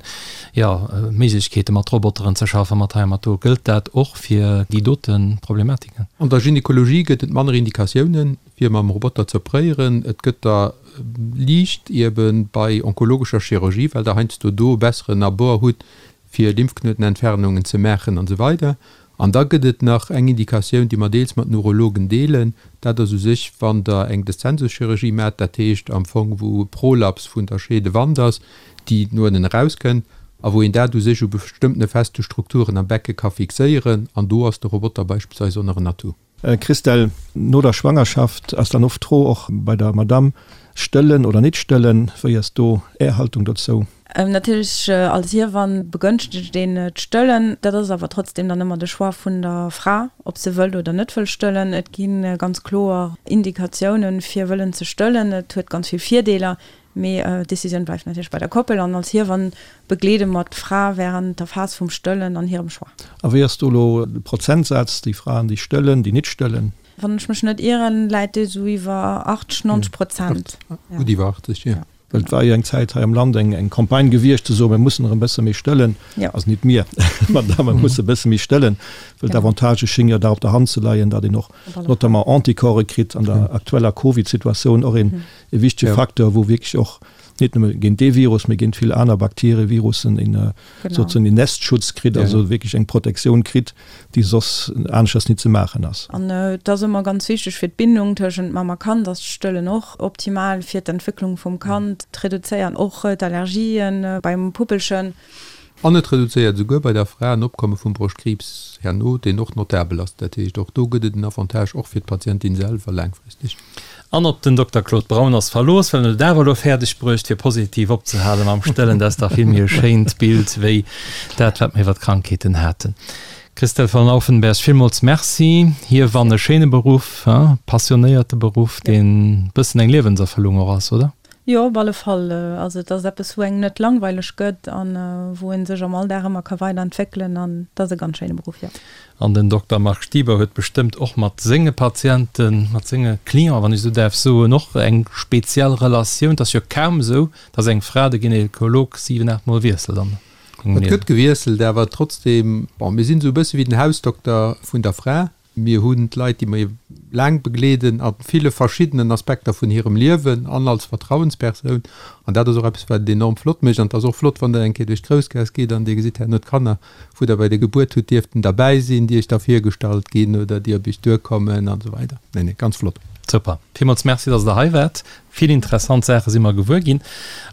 jo, Méiglechkeete mat Roboteren ze schaffen, mat hei a mat do. Gëllt dat och fir déi dote Problematiken? An der Gynekologie gëtt et manner Indikatiounen, fir mam Roboter ze opréieren. Et gëtt der liicht ebe bei onkologescher Chirurgie, well Der heiansdo do e besseren Abord hutt, fir Lymphknuetenentfernungen ze maachen an esou weider. An da gëtt et nach eng Indikatioun, déi mer deels mat den Urologen deelen, dat ass u sech, wann Der eng Deszensuschirurgie maacht, dat heescht am Fong, wou e Prolaps vun der Scheedewand ass, déi no ënnen erauskënnt, a wou een dat u sech u bestëmmtene feste Strukturen am Becke ka fixéieren, an do ass de Roboter beispillsweis och nach en Atout. Christelle, no der Schwangerschaft ass dann oft d'Fro och bei der Madame, stëllen oder nit stëllen? Wéi ass do Är Haltung dozou? Natierlech als Hiewann begënschtegt een d'Stëllen. Dat ass awer trotzdem dann ëmmer de Choix vun der Fra, ob se wëllt oder net wëll stëllen. Et gi ganz kloer Indikatiounen, fir wëllen ze stëllen. Et huet ganz vill Virdeeler. Mee d'Decisioun bleift natierlech bei der Koppel an als Hiewann begleede mer d'Fra wärend der Phas vum Stëllen an hirem Choix. A wéi ass do elo de Prozentsaz, déi Fraen, déi stëllen, déi nit stëllen? Wann ech mech net ieren, läit dee sou iwwer 80, 90 Prozent. Gutt iwwer 80, jo. Well et war jo eng Zäit hei am Land eng eng Campagne gewiescht ze soen, mir mussen erëm e bësse méi stëllen. Also nit mir, ma d'Damme musse e bësse méi stëllen, well d'Avantagë schénge jo da op der Hand ze leien, datt een och notamment Anticorpse kritt an der aktueller Covid-Situatioun och een e wichtege Facteur, wou wierklech och net nëmme géint dee Virus, mee géint vill aner Bakterien, Virussen een sozusagen een Nestschutz kritt, also wierklech eng Protektioun kritt, déi soss aneschters nit ze maachen ass. An et ass ëmmer ganz wichteg fir d'Bindung tëschent Mamm a Kand ass d'Stëllen och optimal fir d'Entwécklung vum Kand, d'reduzéiert och d'Allergien beim Puppelchen. An et reduzéiert esouguer bei der Fra en Opkomme vum Broschtkriibs herno, deen och notabel ass. Dat heescht, och do gëtt et en Avantage, och fir d'Patientin selwer laangfristeg. An op den Dokter Claude Braun ass verlooss, well en huet et awer elo fäerdeg bruecht, fir positiv opzehale mam Stëllen. Dat ass dach vill méi e schéint Bild wéi dat, wat mer iwwer d'Krankheeten haten. Christelle von Auffenberg, villmools Merci. Hiewann e schéine Beruff, passionéierte Beruff, deen e bëssen eng Liewenserfëllung och ass, oder? Jo, op alle Fall. Also et ass eppes, wou engem net langweileg gëtt an wou ee sech am Alldag ëmmer ka weiderentwéckelen an et ass e ganz schéine Beruff, jo. An den Dokter Marc Stieber huet bestëmmt och mat senge Patienten, mat senge Clienten, wann ech esou däerf soen, och eng speziell Relatioun. Et ass jo kaum esou, datt eng Fra de Gynekolog siwen, aacht Mol wiesselt an engem Liewen. Et gëtt gewiesselt, awer trotzdem, bon, mir sinn esou e bësse wéi den Hausdokter vun der Fra. Mir hunn d'Leit, déi mer laang begleeden, a ville verschiddenen Aspekter vun hirem Liewen an als Vertrauenspersoun. An dat ass och eppes, wat et enorm flott mécht. An et ass och flott, wann Der eng Kéier duerch d'Groussgaass gitt an Dir gesitt herno d'Kanner, wou Der bei der Gebuert hutt dierften derbäi sinn, déi Iech da virgestallt ginn oder déi op Iech duerkommen an esou weider. Nee, nee, ganz flott. Super. Villmools Merci, dass Der hei waart. Vill interessant Saache si mer gewuer ginn.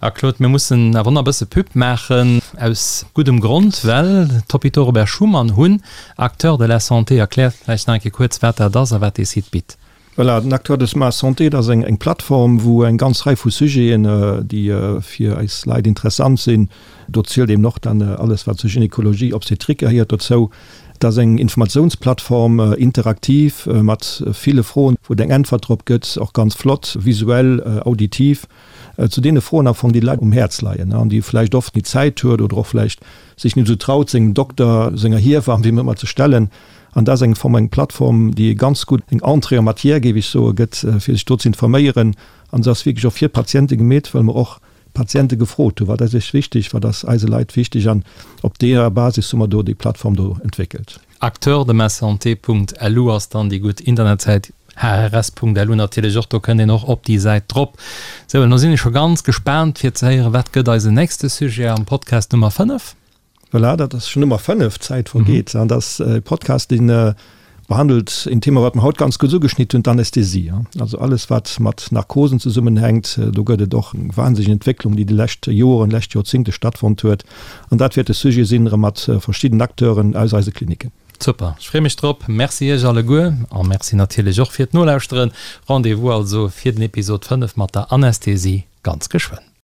A Claude, mir mussen awer nach e bësse Pub maachen, aus guddem Grond, well d'Hôpitaux Robert Schuman hunn Acteurs de la santé. Erklär vläicht nach eng Kéier kuerz, wat dat ass a wat dee Site bitt. Voilà, den Acteurs de la santé, dat ass eng Plattform, wou eng ganz Rei vu Sujeten, déi fir eis Leit interessant sinn, do zielt eben och dann alles, wat zur Gynekologie, Obstétrique gehéiert dozou, Et ass eng Informatiounsplattform, interaktiv, mat ville Froen, wou et eng Äntwert drop gëtt, och ganz flott, visuell, auditiv, zu deene Froen am Fong, déi de Leit um Häerz leien an déi vläicht oft nit Zäit huet oder och vläicht sech nit esou traut, sengem Dokter, senger Hiewamm, wéi ëmmer, ze stellen. An dat ass eng Form, eng Plattform, déi e ganz gutt, eng Entrée en matière, géif ech soen, gëtt, fir sech do ze informéieren. An se ass wierklech och fir d'Patiente gemeet, well mer och d'Patiente gefrot hunn, wat ass iech wichteg, wat ass eise Leit wichteg. An op deeër Basis hu mer do déi Plattform do entwéckelt. Acteurdemassanté.lu ass dann déi gutt Internetsäit, hrs.lu natierlech och, do kënnt een och op déi Säit drop. Sou, elo sinn ech scho ganz gespaant fir ze héieren, wat gëtt eisen nächste Sujet am Podcast Nummer 5? Voilà, dat ass schon Nummer 5, d'Zäit vergeet. An dat ass e Podcast, deen behandelt een Thema, wat mer haut ganz kuerz ugeschnitt hunn, d'Anästhesie. Also alles, wat mat Narkosen zesummenhänkt. Do gëtt et och eng wahnsinneg Entwécklung, déi déi lescht Joren, lescht Joerzingte stattfonnt huet. An dat wäert de Sujet sinn, erëm mat verschidden Acteuren aus eise Kliniken. Super, ech freeë mech drop. Merci Iech alleguer a Merci natierlech och fir d'Nolauschteren. Rendez-vous also fir den Episod 5 mat der Anästhesie ganz geschwënn.